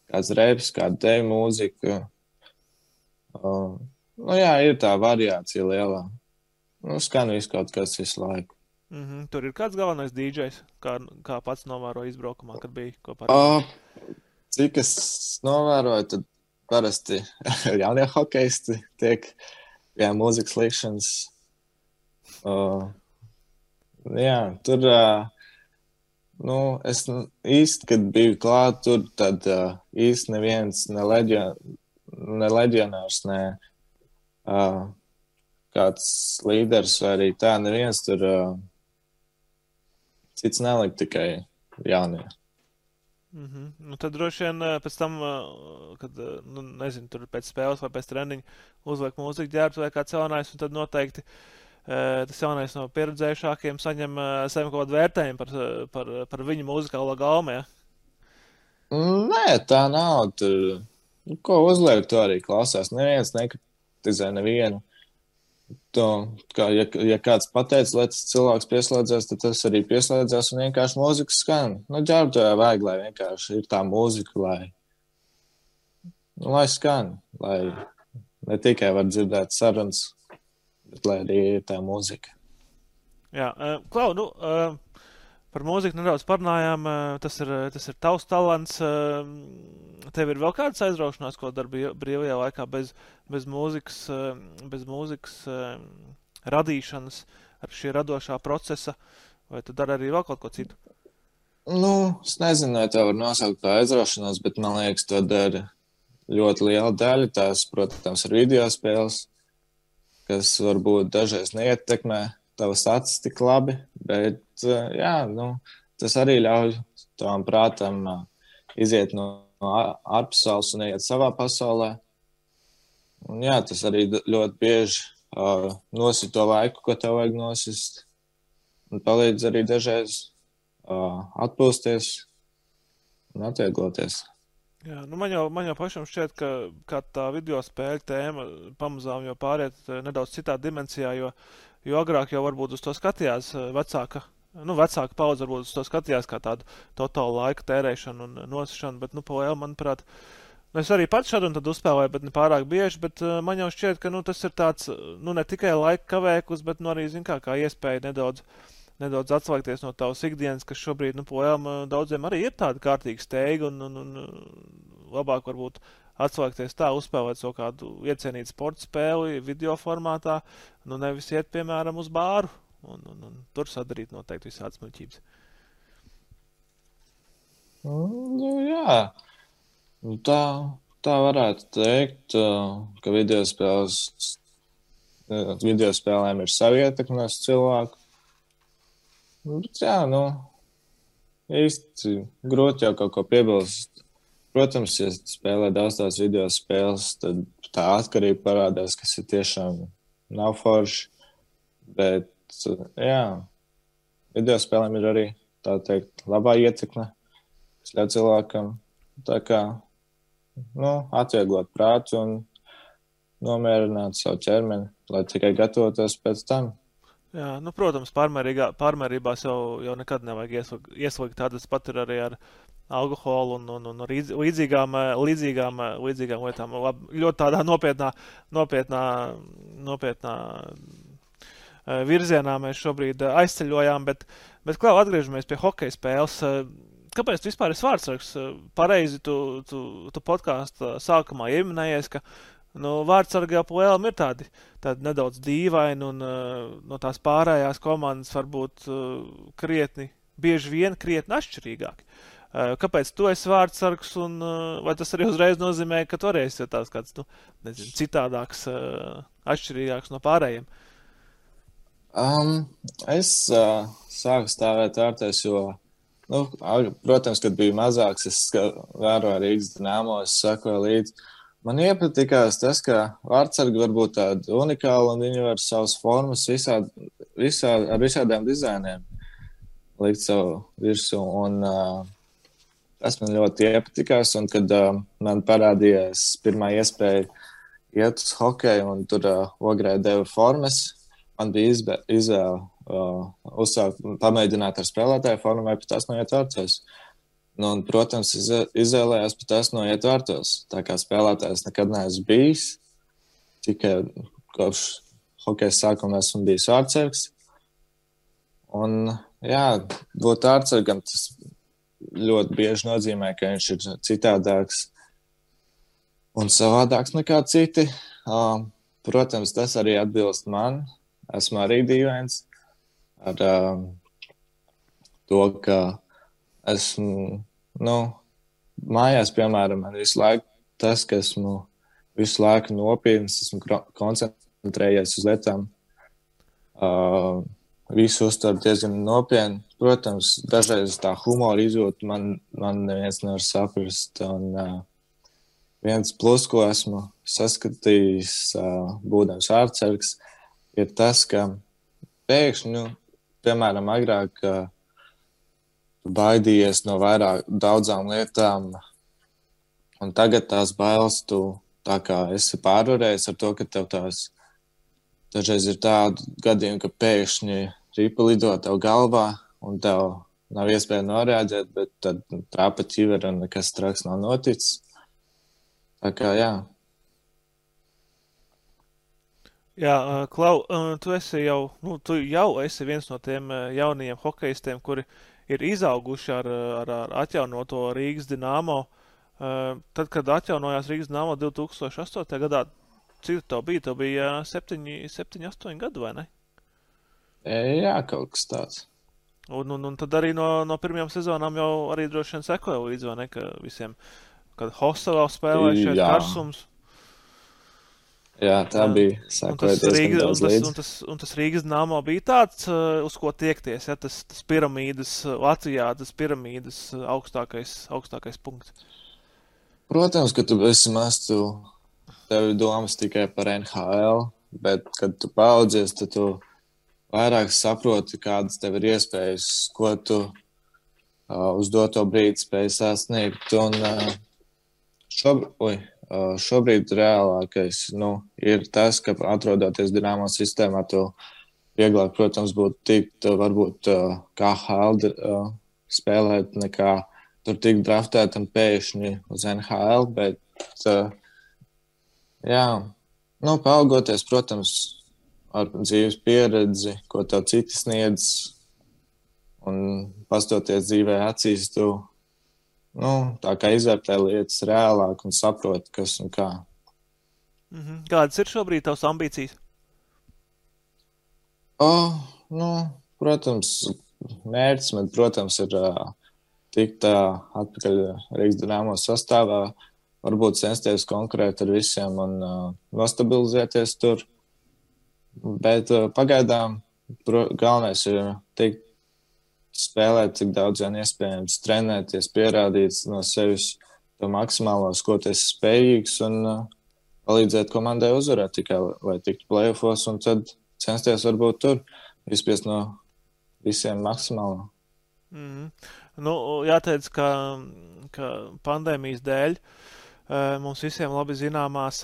Kāds reps, kāda tev mūzika. Jā, ir tā variācija lielā. Skan visu kaut kas visu laiku. Tur ir kāds galvenais DJs, kā pats novēroja izbraukumā, kad bija kopā? Cik es novēroju, tad parasti jaunie hokeisti tiek mūzikas likšanas. Jā, tur, es īsti, kad biju klāt tur, tad īsti neviens, ne leģionārs, ne kāds līderis vai arī tā, neviens tur cits nelika, tikai jaunie. Tad droši vien pēc tam, kad, nezinu, tur pēc spēles vai pēc treniņa uzliek mūziku ģērbtu vai kāds jaunais, un tad noteikti tas jaunais no pieredzējušākiem saņem saviem kaut kādu vērtējumu par viņu mūzikālo gaumu, ja? Nē, tā nav. Tur, ko uzliek, to arī klausās. Neviens nekritizē nevienu. Ja kāds pateica, lai tas cilvēks pieslēdzās, tad tas arī pieslēdzās un vienkārši mūzika skan. Ģērbtuvē vajag, lai vienkārši ir tā mūzika, lai skan, lai ne tikai var dzirdēt sarunas, bet lai arī ir tā mūzika. Jā, Klau, par mūziku nedaudz parunājām, tas ir tavs talants. Tev ir vēl kādas aizraušanās, ko dari brīvajā laikā bez mūzikas radīšanas, ar šī radošā procesa, vai tu dari arī vēl kaut ko citu? Es nezinu, vai tā var nosaukt par aizraušanos, bet man liekas, to dara ļoti liela daļa. Tās, protams, ir video spēles, kas varbūt dažreiz neietekmē tavas acis tik labi, bet tas arī ļauj tavam prātam iziet no ārpasaules un iet savā pasaulē. Un jā, tas arī ļoti bieži nosit to laiku, ko tev vajag nosist. Un palīdz arī dažreiz atpūsties un atviegloties. Jā, man jau pašam šķiet, ka tā video spēļu tēma pamazām jau pāriet nedaudz citā dimensijā, jo agrāk jau varbūt uz to skatījās vecāka paudze varbūt uz to skatījās kā tādu totālu laika tērēšanu un nosišanu, bet, manuprāt, es arī pats šādu un tad uzspēlēju, bet ne pārāk bieži, bet man jau šķiet, ka, tas ir tāds, ne tikai laika kavēklis, bet, arī, kā iespēja nedaudz atslēgties no tavas ikdienas, kas šobrīd, daudziem arī ir tāda kārtīga steiga un labāk varbūt atslēgties tā, uzspēlēt savu kādu iecienītu sporta spēli video formātā, nevis iet, piemēram, uz bāru. Un tur sadarīt noteikti visādas muļķības. Jā. Tā varētu teikt, ka video spēlēm ir savi ietekme uz cilvēku. Bet jā, īsti grūti jau kaut ko piebilst. Protams, ja spēlē daudz tās video spēles, tad tā atkarība parādās, kas ir tiešām nav forši. Bet jā, video spēlēm ir arī, tā teikt, labā ietekme, kas ļauj cilvēkam tā kā, atvieglot prātu un nomierināt savu ķermeni, lai tikai gatavotos pēc tam. Jā, protams, pārmērībās jau nekad nevajag ieslīgt tādas pat ir arī ar alkoholu un līdzīgām lietām. Ļoti tādā nopietnā virzienā mēs šobrīd aizceļojām, bet Klau, atgriežamies pie hokeja spēles. Kāpēc tu vispār esi vārdsargs? Pareizi tu podkāstu sākumā ieminējies, ka vārdsargi jau plēlam ir tādi nedaudz dīvaini un no tās pārējās komandas varbūt bieži vien krietni atšķirīgāki. Kāpēc tu esi vārdsargs un vai tas arī uzreiz nozīmē, ka tu arī esi tāds kāds, citādāks, atšķirīgāks no pārējiem? Es sāku stāvēt vārtēs, jo, protams, kad biju mazāks, es vēroju Rīgas Dinamo, es sakoju līdzi. Man iepatikās tas, ka vārtsargi var būt tādi unikāli un viņi var savas formas ar visādiem dizainiem likt savu virsū. Un tas man ļoti iepatikās. Un kad man parādījās pirmā iespēja iet uz hokeju un tur Ogrē deva formas, man bija izvēle uzsākt, pamēģināt ar spēlētāju formu vai pat tās noiet vārtos. Nu, un, protams, izvēlējās pat tās noiet vārtos. Tā kā spēlētājs nekad neesmu bijis. Tikai kopš hokeja sākuma esmu bijis vārtsargs. Un, jā, būt vārtsargam tas ļoti bieži nozīmē, ka viņš ir citādāks un savādāks nekā citi. Protams, tas arī atbilst man. Esmu arī dīvains ar to, ka esmu, mājās, piemēram, man visu laiku tas, ka esmu visu laiku nopietns, esmu koncentrējies uz lietām, visu uztveru diezgan nopietni. Protams, dažreiz tā humora izjūta man neviens nevar saprast. Un viens plus, ko esmu saskatījis, būdams vārtsargs, ir tas, ka pēkšņi, piemēram, agrāk baidījies no daudzām lietām, un tagad tās bailes tu tā kā esi pārvarējis ar to, ka tev tās dažreiz ir tādi gadījumi, ka pēkšņi ripa lido tev galvā, un tev nav iespēja noreaģēt, bet tad trāpa ķivera un nekas traks nav noticis. Tā kā, jā. Jā, Klau, tu jau esi viens no tiem jaunajiem hokejistiem, kuri ir izauguši ar atjaunoto Rīgas Dinamo. Tad, kad atjaunojās Rīgas Dinamo 2008. gadā, cik tev bija? Tev bija 7-8 gadu, vai ne? Jā, kaut kas tāds. Un tad arī no pirmajām sezonām jau arī droši vien sekoja līdzi, vai ne, ka visiem, kad Hostelā spēlēja šeit Karsums. Jā, tā bija. Sekoja diezgan daudz līdzi. Un tas Rīgas Dinamo bija tāds, uz ko tiekties, ja? Tas piramīdas Latvijā, tas piramīdas augstākais punkts. Protams, ka tu esi maz, tev ir domas tikai par NHL, bet, kad tu paaudzies, tad tu vairāk saproti, kādas tev ir iespējas, ko tu uz doto brīdi spēj sasniegt. Un šobrīd reālākais ir tas, ka atrodoties Dinamo sistēmā, tu vieglāk, protams, būtu tikt varbūt KHL spēlēt nekā tur tikt draftēt un pēkšņi uz NHL, bet paaugoties, protams, ar dzīves pieredzi, ko tev citi sniedz un pastoties dzīvē acīs, tu tā kā izvērtē lietas reālāk un saprot, kas un kā. Kādas ir šobrīd tavas ambīcijas? Protams, mērķis man, protams, ir tikt atpakaļ Rīgas Dinamo sastāvā, varbūt censties konkurēt ar visiem un nostabilizēties tur. Bet pagaidām galvenais ir tikt spēlēt, cik daudz vien iespējams, trenēties, pierādīt no sevis to maksimālo, ko tu esi spējīgs un palīdzēt komandai uzvarēt tikai, lai tiktu play-offos un tad censties varbūt tur izspiest no visiem maksimālo. Jāteic, ka pandēmijas dēļ mums visiem labi zināmās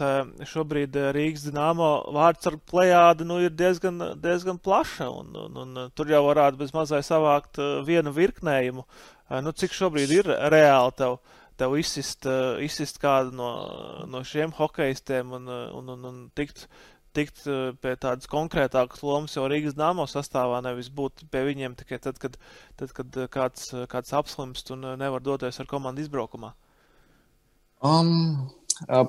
šobrīd Rīgas Dinamo vārtsargu plejāde ir diezgan plaša, un tur jau varētu bez mazai savākt vienu virknējumu. Cik šobrīd ir reāli tev izsist kādu no šiem hokejistiem un tikt pie tādas konkrētākas lomas jau Rīgas Dinamo sastāvā, nevis būt pie viņiem tikai tad, kad kāds apslimst un nevar doties ar komandu izbraukumā?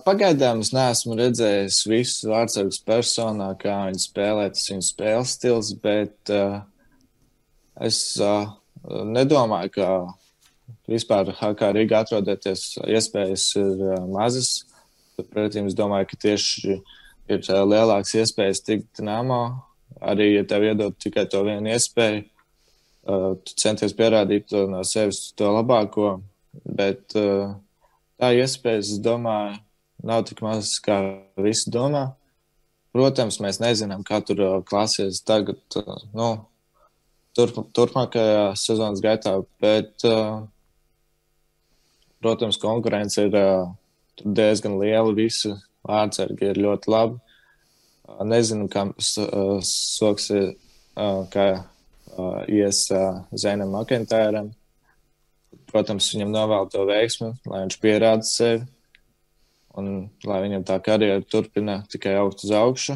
Pagaidām es neesmu redzējis visus vārtsargus personā, kā viņi spēlē, tas viņu spēles stils, bet es nedomāju, ka vispār HK Rīgā atrodoties iespējas ir mazas. Pretī es domāju, ka tieši ir lielāks iespējas tikt Dinamo arī, ja tev iedod tikai to vienu iespēju, tu centies pierādīt to no sevis to labāko, bet tā iespējas, es domāju, nav tik maz, kā visi domā. Protams, mēs nezinām, kā tur klāsies tagad, turpmākajā sezonas gaitā, bet, protams, konkurence ir diezgan liela, visi vārdsargi ir ļoti labi. Nezinu, kā soksies, kā ies Zainam Makentēram. Protams, viņam novēl to veiksmi, lai viņš pierāda sevi un lai viņam tā karjera turpina tikai augt uz augšu.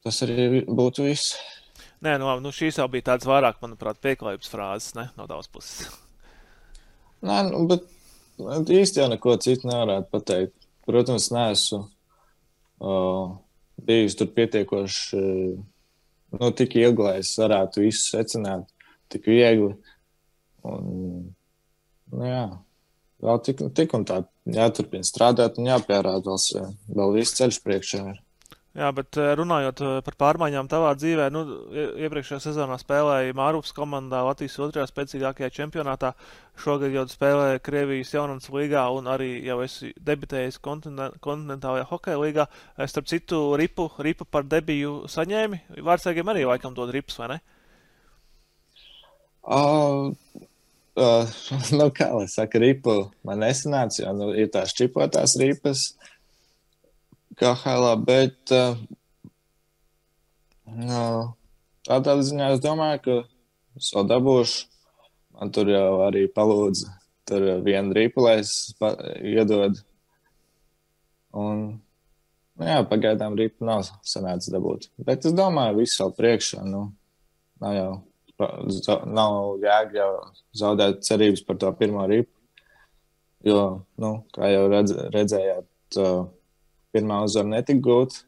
Tas arī būtu viss. Nē, šīs jau bija tāds vairāk, manuprāt, pieklājības frāzes, ne, no tavas puses. Nē, bet īsti jau neko citu nevarētu pateikt. Protams, neesmu bijis tur pietiekoši, tik ilgi, lai es varētu visu secināt, tik viegli. Un, jā, vēl tik un tā jāturpina strādāt un jāpierāda vēl viss ceļš priekšā ir. Jā, bet runājot par pārmaiņām tavā dzīvē, iepriekšējā sezonā spēlēja Mārupas komandā Latvijas 2. spēcīgākajā čempionātā. Šogad jau spēlēja Krievijas Jaunatnes līgā un arī jau esi debitējis kontinentālajā hokeja līgā. Starp citu, ripu par debiju saņēmi. Vārdsargiem arī laikam dod rips, vai ne? Kā lai saka, ripu man nesanāca, jo ir tās čipotās ripas KHL, bet tādā ziņā es domāju, ka es vēl dabūšu. Man tur jau arī palūdza tur vienu ripu, lai es iedod. Un, jā, pagaidām ripu nav sanācis dabūt. Bet es domāju, viss vēl priekšā, nav jēga jau zaudēt cerības par to pirmo ripu, jo, kā jau redzējāt, pirmā uzvara netika gūta,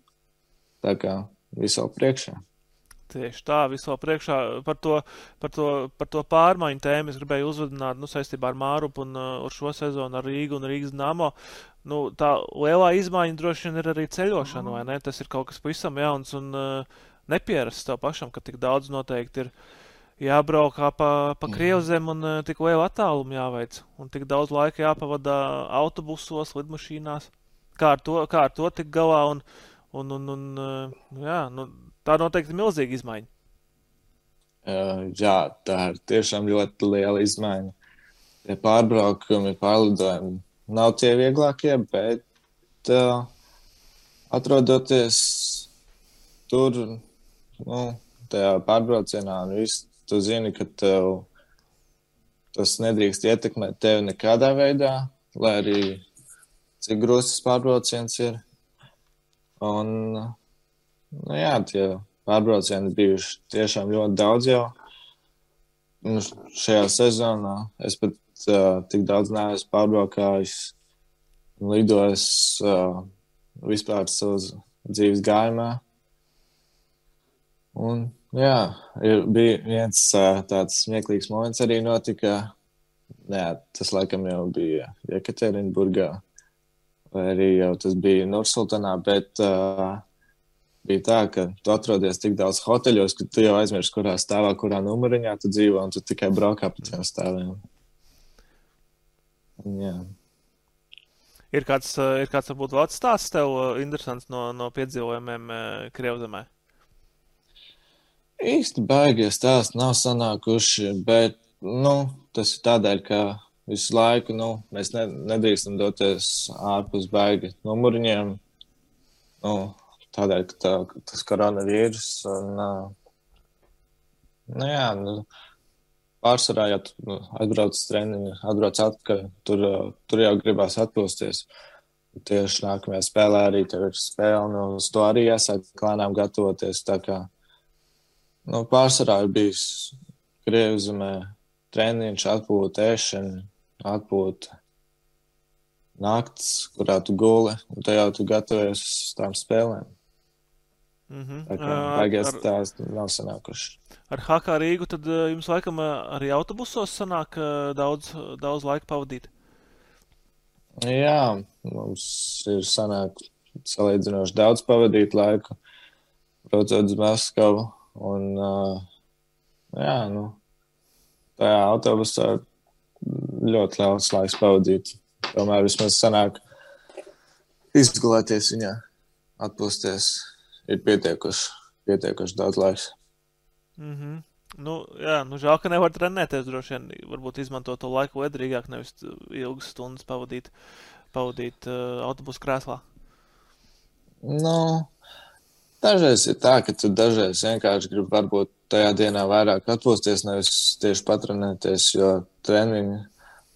tā kā viss vēl priekšā. Tieši tā, viss vēl priekšā. Par to pārmaiņu tēmu es gribēju uzvedināt saistībā ar Mārupu un ar šo sezonu ar Rīgu un Rīgas Dinamo. Tā lielā izmaiņa droši vien ir arī ceļošana, vai ne? Tas ir kaut kas pavisam jauns un nepierasts tev pašam, ka tik daudz noteikti ir jābraukā pa Krievzem un tik lielu attālumu jāveic. Un tik daudz laika jāpavada autobusos, lidmašīnās. Kā ar to tik galā tā noteikti milzīga izmaiņa. Jā, tā ir tiešām ļoti liela izmaiņa. Tie pārbraukumi, pārlidojumi nav tie vieglākie, bet atrodoties tur, tajā pārbraucienā un viss, tu zini, ka tev tas nedrīkst ietekmēt tevi nekādā veidā, lai arī cik grūts pārbrauciens ir. Un, jā, tie pārbraucieni bijuši tiešām ļoti daudz jau. Šajā sezonā es pat tik daudz neesmu pārbraukājis un lidojis vispār savas dzīves gājumā. Un, jā, bija viens tāds smieklīgs moments arī notika. Jā, tas laikam jau bija Jekaterinburgā. Vai arī jau tas bija Nursultanā, bet bija tā, ka tu atrodies tik daudz hoteļos, ka tu jau aizmirsti, kurā stāvā, kurā numuriņā tu dzīvo, un tu tikai braukā pa tiem stāviem. Jā. Ir kāds varbūt vēl stāsts tev interesants no piedzīvojumiem Krievzemē? Īsti baigie stāsti nav sanākuši, bet, tas ir tādēļ, ka visu laiku, mēs nedrīkstam doties ārpus baigi numuriņiem, tādēļ, ka tas koronavīrus, un, pārsvarā, ja tu atbrauc uz treniņu, atbrauc atpakaļ, tur jau gribās atpūsties. Tieši nākamajā spēlē arī tev ir spēle, un uz to arī jāsāk lēnām gatavoties, tā kā, pārsvarā ir bijis Krievzemē treniņš, atpūta, ēšana, atpūta, nakts, kurā tu guli, un te jau tu gatavojies uz tām spēlēm. Tā kā baigies tās nav sanākuši. Ar HK Rīgu tad jums laikam arī autobusos sanāk daudz laika pavadīt? Jā, mums ir sanāk salīdzinoši daudz pavadīt laiku. braucot uz Maskavu. Un, jā, tajā autobusā ļoti liels laiks pavadīt. Tomēr vismaz sanāk izgulēties viņā, atpūsties. Ir pietiekuši daudz laiks. Žēl, ka nevar trenēties droši vien. Varbūt izmantot to laiku liederīgāk, nevis ilgas stundas pavadīt autobusu krēslā. Dažreiz ir tā, ka tu dažreiz vienkārši gribi varbūt tajā dienā vairāk atpūsties, nevis tieši patrenēties, jo treniņi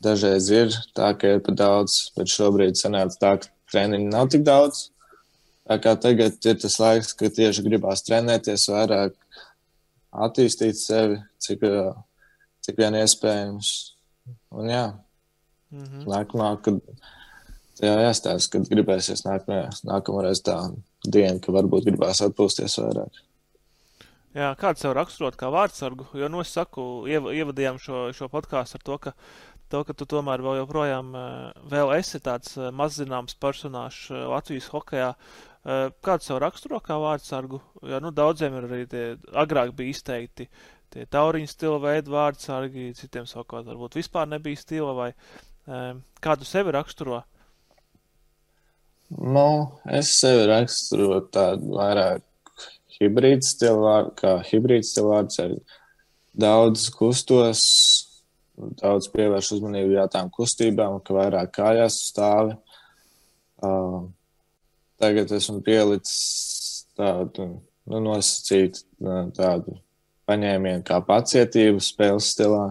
dažreiz ir tā, ka ir pa daudz, bet šobrīd sanāca tā, ka treniņi nav tik daudz. Tā kā tagad ir tas laiks, ka tieši gribās trenēties vairāk, attīstīt sevi, cik vien iespējams. Un jā, nākamā, kad jāstāsta, kad gribēsies nākamreiz tā diena, ka varbūt gribās atpūsties vairāk. Jā, kāds sev raksturot kā vārdsargu? Jo, es saku, ievadījām šo podkāstu ar to, ka tu tomēr vēl joprojām vēl esi tāds mazzināms personāžs Latvijas hokejā. Kādu sev raksturo kā vārdsargu? Jo, daudziem ir arī tie agrāk bija izteikti tie tauriņu stila veidu vārdsargi, citiem savukārt varbūt vispār nebija stila, vai kādu sevi raksturo? Es sevi raksturu tādu vairāk hibrīdu stilu vārdsargu. Daudz kustos, daudz pievērš uzmanību tām kustībām, ka vairāk kājās stāvi. Tagad esmu pielicis tādu nosacītu tādu paņēmienu kā pacietību spēles stilā.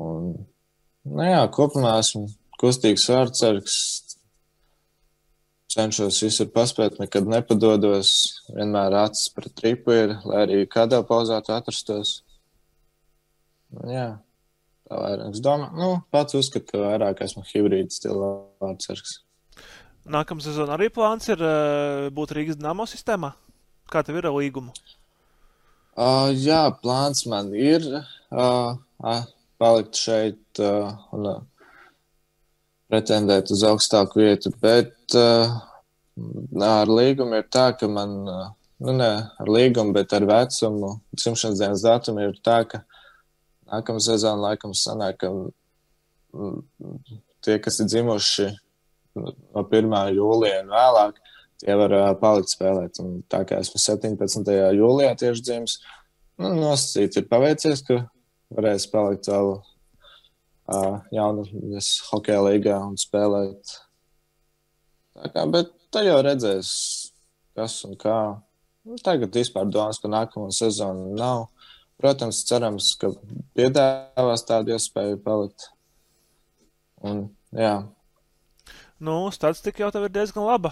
Un, kopumā esmu kustīgs vārdsargs. Cenšos visur paspēt, nekad nepadodos. Vienmēr acis pret tripu ir, lai arī kādā pauzā tu atrastos. Tā vairāk. Es domāju, pats uzskatu, ka vairāk esmu hibrīdu stila vārdsargs. Nākamā sezona arī plāns ir būt Rīgas Dinamo sistēmā? Kā tev ir ar līgumu? Jā, plāns man ir palikt šeit un pretendēt uz augstāku vietu, bet ar līgumu ir tā, ka man, ne ar līgumu, bet ar vecumu, dzimšanas dienas datumu ir tā, ka nākamā sezona laikam sanāk, ka tie, kas ir dzimuši no 1. jūlija un vēlāk, tie var palikt spēlēt. Un tā kā esmu 17. jūlijā tieši dzimis, nosacīt ir paveicies, ka varēs palikt vēl jaunas hokeja līgā un spēlēt. Bet tā jau redzēs, kas un kā. Tagad vispār domas par nākamo sezonu nav. Protams, cerams, ka piedāvās tādu iespēju palikt. Un, jā. Statistika jau tev ir diezgan laba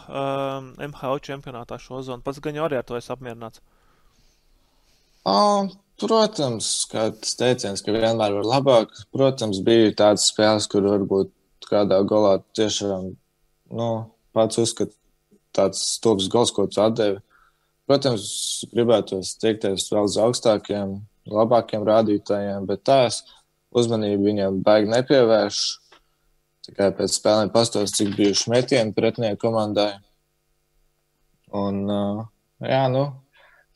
MHL čempionātā šo zonu. Pats gan jau arī ar to esi apmierināts. Protams, kāds teiciens, ka vienmēr var labāk. Protams, bija tādas spēles, kur varbūt kādā golā tiešām, pats uzskat tāds stulbs gols, ko tu atdevi. Protams, gribētos tiekties vēl uz augstākiem, labākiem rādītājiem, bet tās uzmanību viņiem baigi nepievērš. Tikai pēc spēlēm pastos, cik bijuši metieni pretinieku komandai. Un,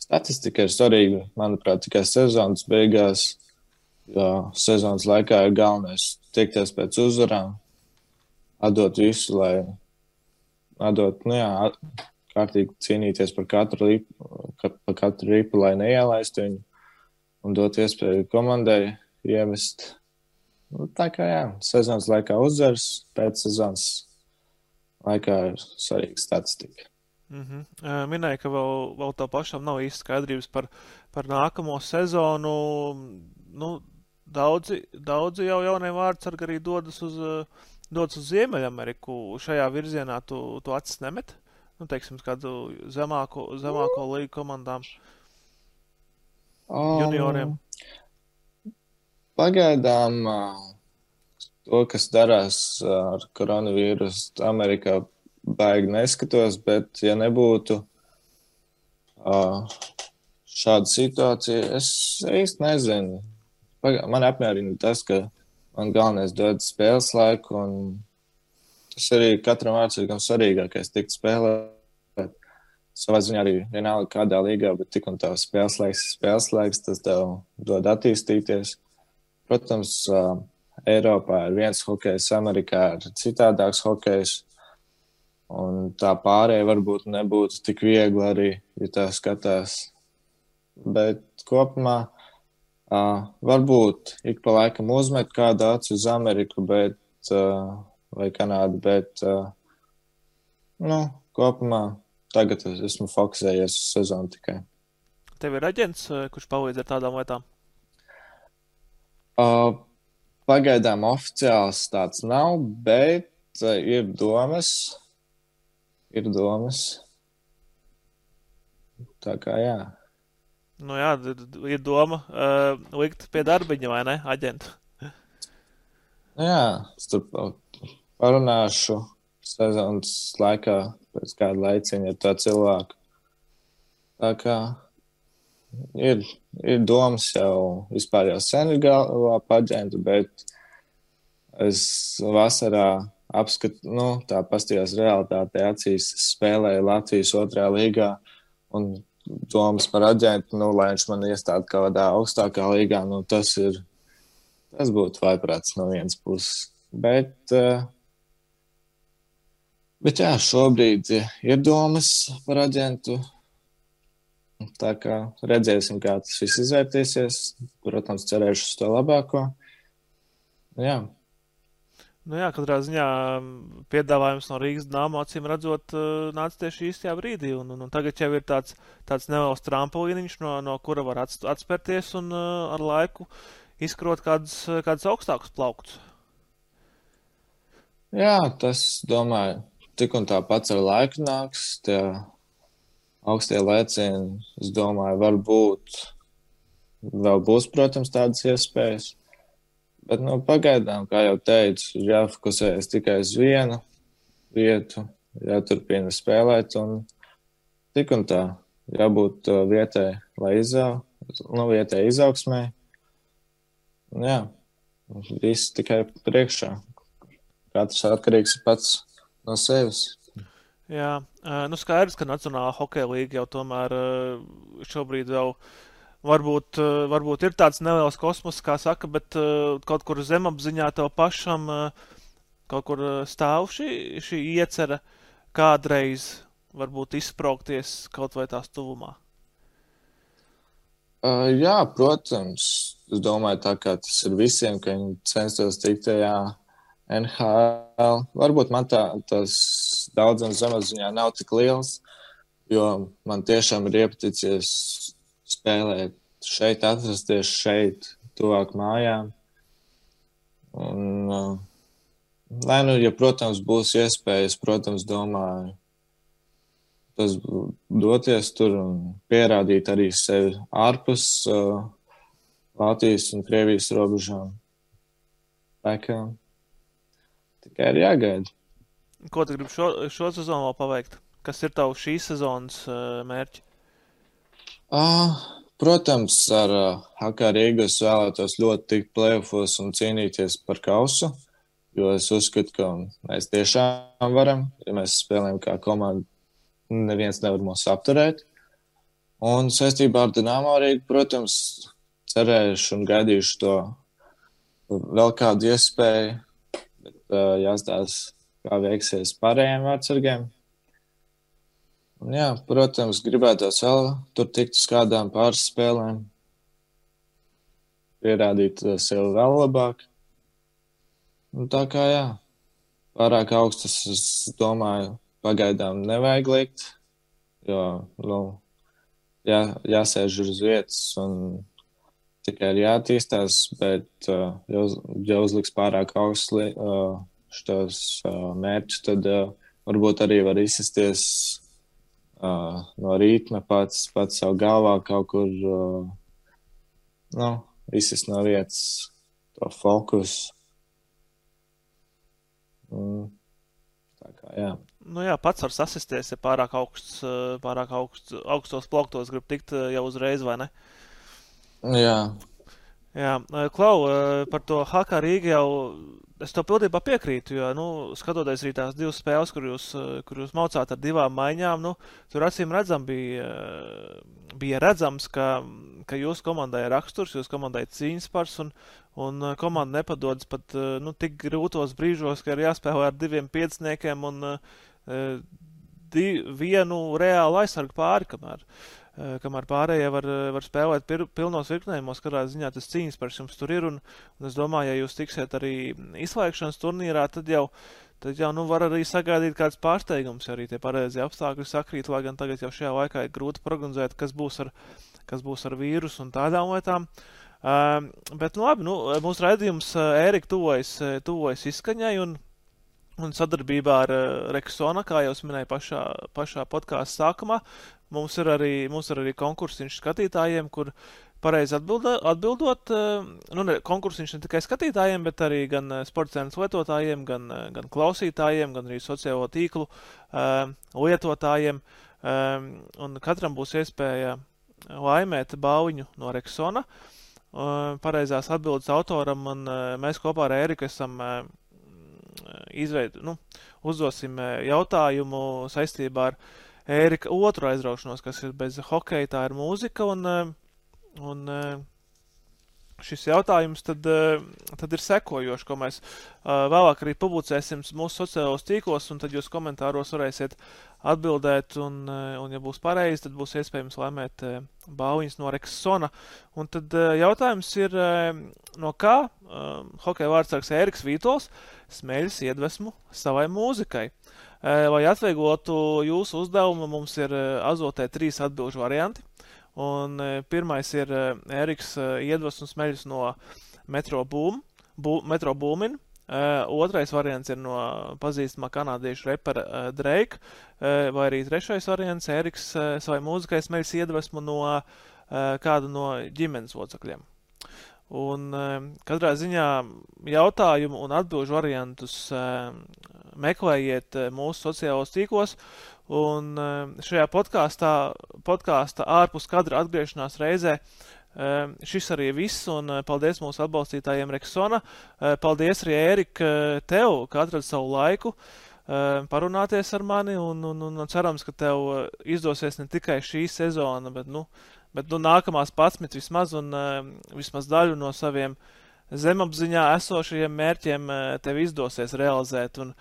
statistika ir svarīga, manuprāt, tikai sezonas beigās, jo sezonas laikā ir galvenais tiekties pēc uzvarām, atdot visu, lai kārtīgi cīnīties par katru ripu, lai neielaistu viņu un dot iespēju komandai iemest. Tā kā sezonas laikā uzvars, pēc sezonas laikā ir svarīga statistika. Minēja, ka vēl tā pašam nav īsti skaidrības par nākamo sezonu. Daudzi jau jaunie vārdsargi arī dodas uz Ziemeļameriku. Šajā virzienā tu acis nemet? Teiksim, kādu zemāko līgu komandām, junioriem. Pagaidām to, kas darās ar koronavīrusu Amerikā, baigi neskatos, bet ja nebūtu šāda situācija, es īsti nezinu. Man apmierina tas, ka man galvenais dod spēles laiku, un tas arī katram vārdsargam svarīgākais tikt spēlēt. savā ziņā arī vienalga kādā līgā, bet tik un tā spēles laiks, tas tev dod attīstīties. Protams, Eiropā ir viens hokejs, Amerikā ir citādāks hokejs, un tā pārēja varbūt nebūtu tik viegli arī, ja tā skatās. Bet kopumā varbūt ik pa laikam uzmet kādu aci uz Ameriku, vai Kanādu, bet kopumā tagad esmu fokusējies uz sezonu tikai. Tev ir aģents, kurš palīdz ar tādām lietām? Pagaidām oficiāls tāds nav, bet ir domas. Tā kā jā. Nu jā, ir doma likt pie darbiņa, vai ne, aģentu? Jā, es tur parunāšu sezonas laikā pēc kāda laiciņa ar tā cilvēku. Tā kā ir domas jau vispār jau sen ir galvā paģentu, bet es vasarā tā pastījās realitātē acīs, spēlēju Latvijas 2. līgā un domas par aģentu, lai viņš man iestāda kādā augstākā līgā, tas būtu vaiprāts no vienas puses. Bet jā, šobrīd ir domas par aģentu. Tā kā redzēsim, kā tas viss izvērtīsies. Protams, cerēšu uz to labāko. Jā. Nu jā, katrā ziņā piedāvājums no Rīgas Dynamo acīm redzot nāca tieši īstajā brīdī. Un tagad jau ir tāds neliels trampoliniņš, no kura var atspērties un ar laiku izkrot kādus augstākus plauktus. Jā, tas, domāju, tik un tā pats ar laiku nāks. Tie augstie lēcieni, es domāju, varbūt vēl būs, protams, tādas iespējas. Bet, pagaidām, kā jau teicu, jāfokusējas tikai uz vienu vietu, jāturpina spēlēt un tik un tā jābūt vietai, vietai izaugsmē. Jā, viss tikai priekšā. Katrs atkarīgs pats no sevis. Jā, skaidrs, ka Nacionālā hokeja līga jau tomēr šobrīd vēl varbūt ir tāds neliels kosmos, kā saka, bet kaut kur zemapziņā tev pašam kaut kur stāv šī iecera kādreiz varbūt izspraukties kaut vai tās tuvumā. Jā, protams. Es domāju, tā kā tas ir visiem, ka viņi censtos tikt tajā NHL. Varbūt man tas daudzums zemapziņā nav tik liels, jo man tiešām ir iepaticies spēlēt šeit, atrasties šeit, tuvāk mājām. Un, ja, protams, būs iespējas, protams, domāju, tas doties tur un pierādīt arī sevi ārpus Latvijas un Krievijas robežām. Tā kā tikai ir jāgaida. Ko tu gribi šo sezonu vēl paveikt? Kas ir tavu šīs sezonas mērķi? Protams, ar HK Rīgu es vēlētos ļoti tikt play-offos un cīnīties par kausu, jo es uzskatu, ka mēs tiešām varam, ja mēs spēlējam kā komanda, neviens nevar mūs apturēt. Un saistībā ar Dynamo Rīgu, protams, cerēšu un gaidīšu to vēl kādu iespēju, bet jāstāsta, kā veiksies pārējiem vārdsargiem. Un jā, protams, gribētos vēl tur tikt uz kādām pāris spēlēm, pierādīt sevi vēl labāk. Un tā kā jā, pārāk augstas, es domāju, pagaidām nevajag likt, jo, jāsēž uz vietas un tikai ir jātīstās, bet ja uzliks pārāk augsts šos mērķus, tad varbūt arī var izsisties no rītma pats savu galvā kaut kur, izsist no vietas to fokusu. Tā kā, jā. Nu jā, pats var sasisties, ja pārāk augstos plauktos grib tikt jau uzreiz, vai ne? Jā. Jā, Klau, par to HK Rīgu jau es to pildībā piekrītu, jo, skatoties arī tās divas spēles, kur jūs maucāt ar divām maiņām, tur acīm redzam bija redzams, ka jūsu komandai ir raksturs, jūsu komandai ir cīņas pars, un komanda nepadodas pat, tik grūtos brīžos, ka ir jāspēlē ar 2 pieciniekiem un vienu reālu aizsargu pāri, kamēr pārējie var spēlēt pilnos virknējumos, kādā ziņā tas cīņas pars jums tur ir, un es domāju, ja jūs tiksiet arī izslēgšanas turnīrā, tad jau var arī sagaidīt kāds pārsteigums, ja arī tie pareizie apstākļi sakrīt, lai gan tagad jau šajā laikā ir grūti prognozēt, kas būs ar vīrusu un tādām lietām. Bet, labi, mūsu raidījums Ērika tuvojas izskaņai, un sadarbībā ar Rexona, kā jau es minēju pašā podkāsta sākumā, mums ir arī konkursiņš skatītājiem, kur pareizi atbildot, konkursiņš ne tikai skatītājiem, bet arī gan sportcēnas lietotājiem, gan klausītājiem, gan arī sociālo tīklu lietotājiem, un katram būs iespēja laimēt balviņu no Rexona, pareizās atbildes autoram, un mēs kopā ar Ēriku esam uzdosim jautājumu saistībā ar Ērika otru aizraušanos, kas ir bez hokeja, tā ir mūzika, un šis jautājums tad ir sekojošs, ko mēs vēlāk arī publicēsim mūsu sociālos tīklos, un tad jūs komentāros varēsiet atbildēt, un ja būs pareizi, tad būs iespējams laimēt balviņas no Rexona. Un tad jautājums ir, no kā hokeja vārdsargs Ēriks Vītols smeļas iedvesmu savai mūzikai. Lai atvieglotu jūsu uzdevumu, mums ir azotē 3 atbilžu varianti. Un pirmais ir Ēriks iedvesmu smeļas no Metro Boomin. Otrais variants ir no pazīstamā kanādiešu repera Drake. Vai arī trešais variants Ēriks savai mūzikai smeļas iedvesmu no kādu no ģimenes locekļiem. Un katrā ziņā jautājumu un atbilžu variantus meklējiet mūsu sociālos tīklos, un šajā podkāsta ārpus kadra atgriešanās reizē šis arī viss, un paldies mūsu atbalstītājiem Rexona. Paldies arī, Ērika, tev, ka atradi savu laiku parunāties ar mani, un cerams, ka tev izdosies ne tikai šī sezona, bet nākamās 11 vismaz, un vismaz daļu no saviem zemapziņā esošajiem mērķiem tev izdosies realizēt, un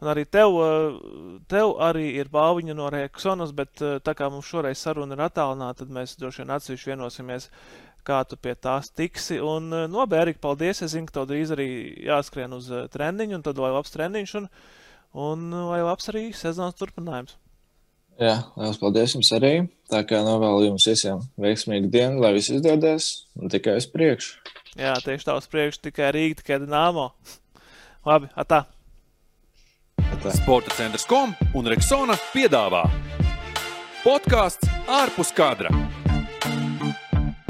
arī tev arī ir balviņa no Rexonas, bet tā kā mums šoreiz saruna ir attālināta, tad mēs droši vien atsevišķi vienosimies, kā tu pie tās tiksi, un labi, Ērika, paldies, es zinu, ka tev drīz arī jāskrien uz treniņu, un tad lai labs treniņš, un lai labs arī sezonas turpinājums. Jā, liels paldies jums arī. Tā kā novēlu jums visiem veiksmīgu dienu, lai viss izdodas, un tikai uz priekšu. Jā, tieši tā uz priekšu, tikai Rīga, tikai Dinamo. Labi, atā. Sporta centrs.com un Rexona piedāvā podcasts ārpus kadra.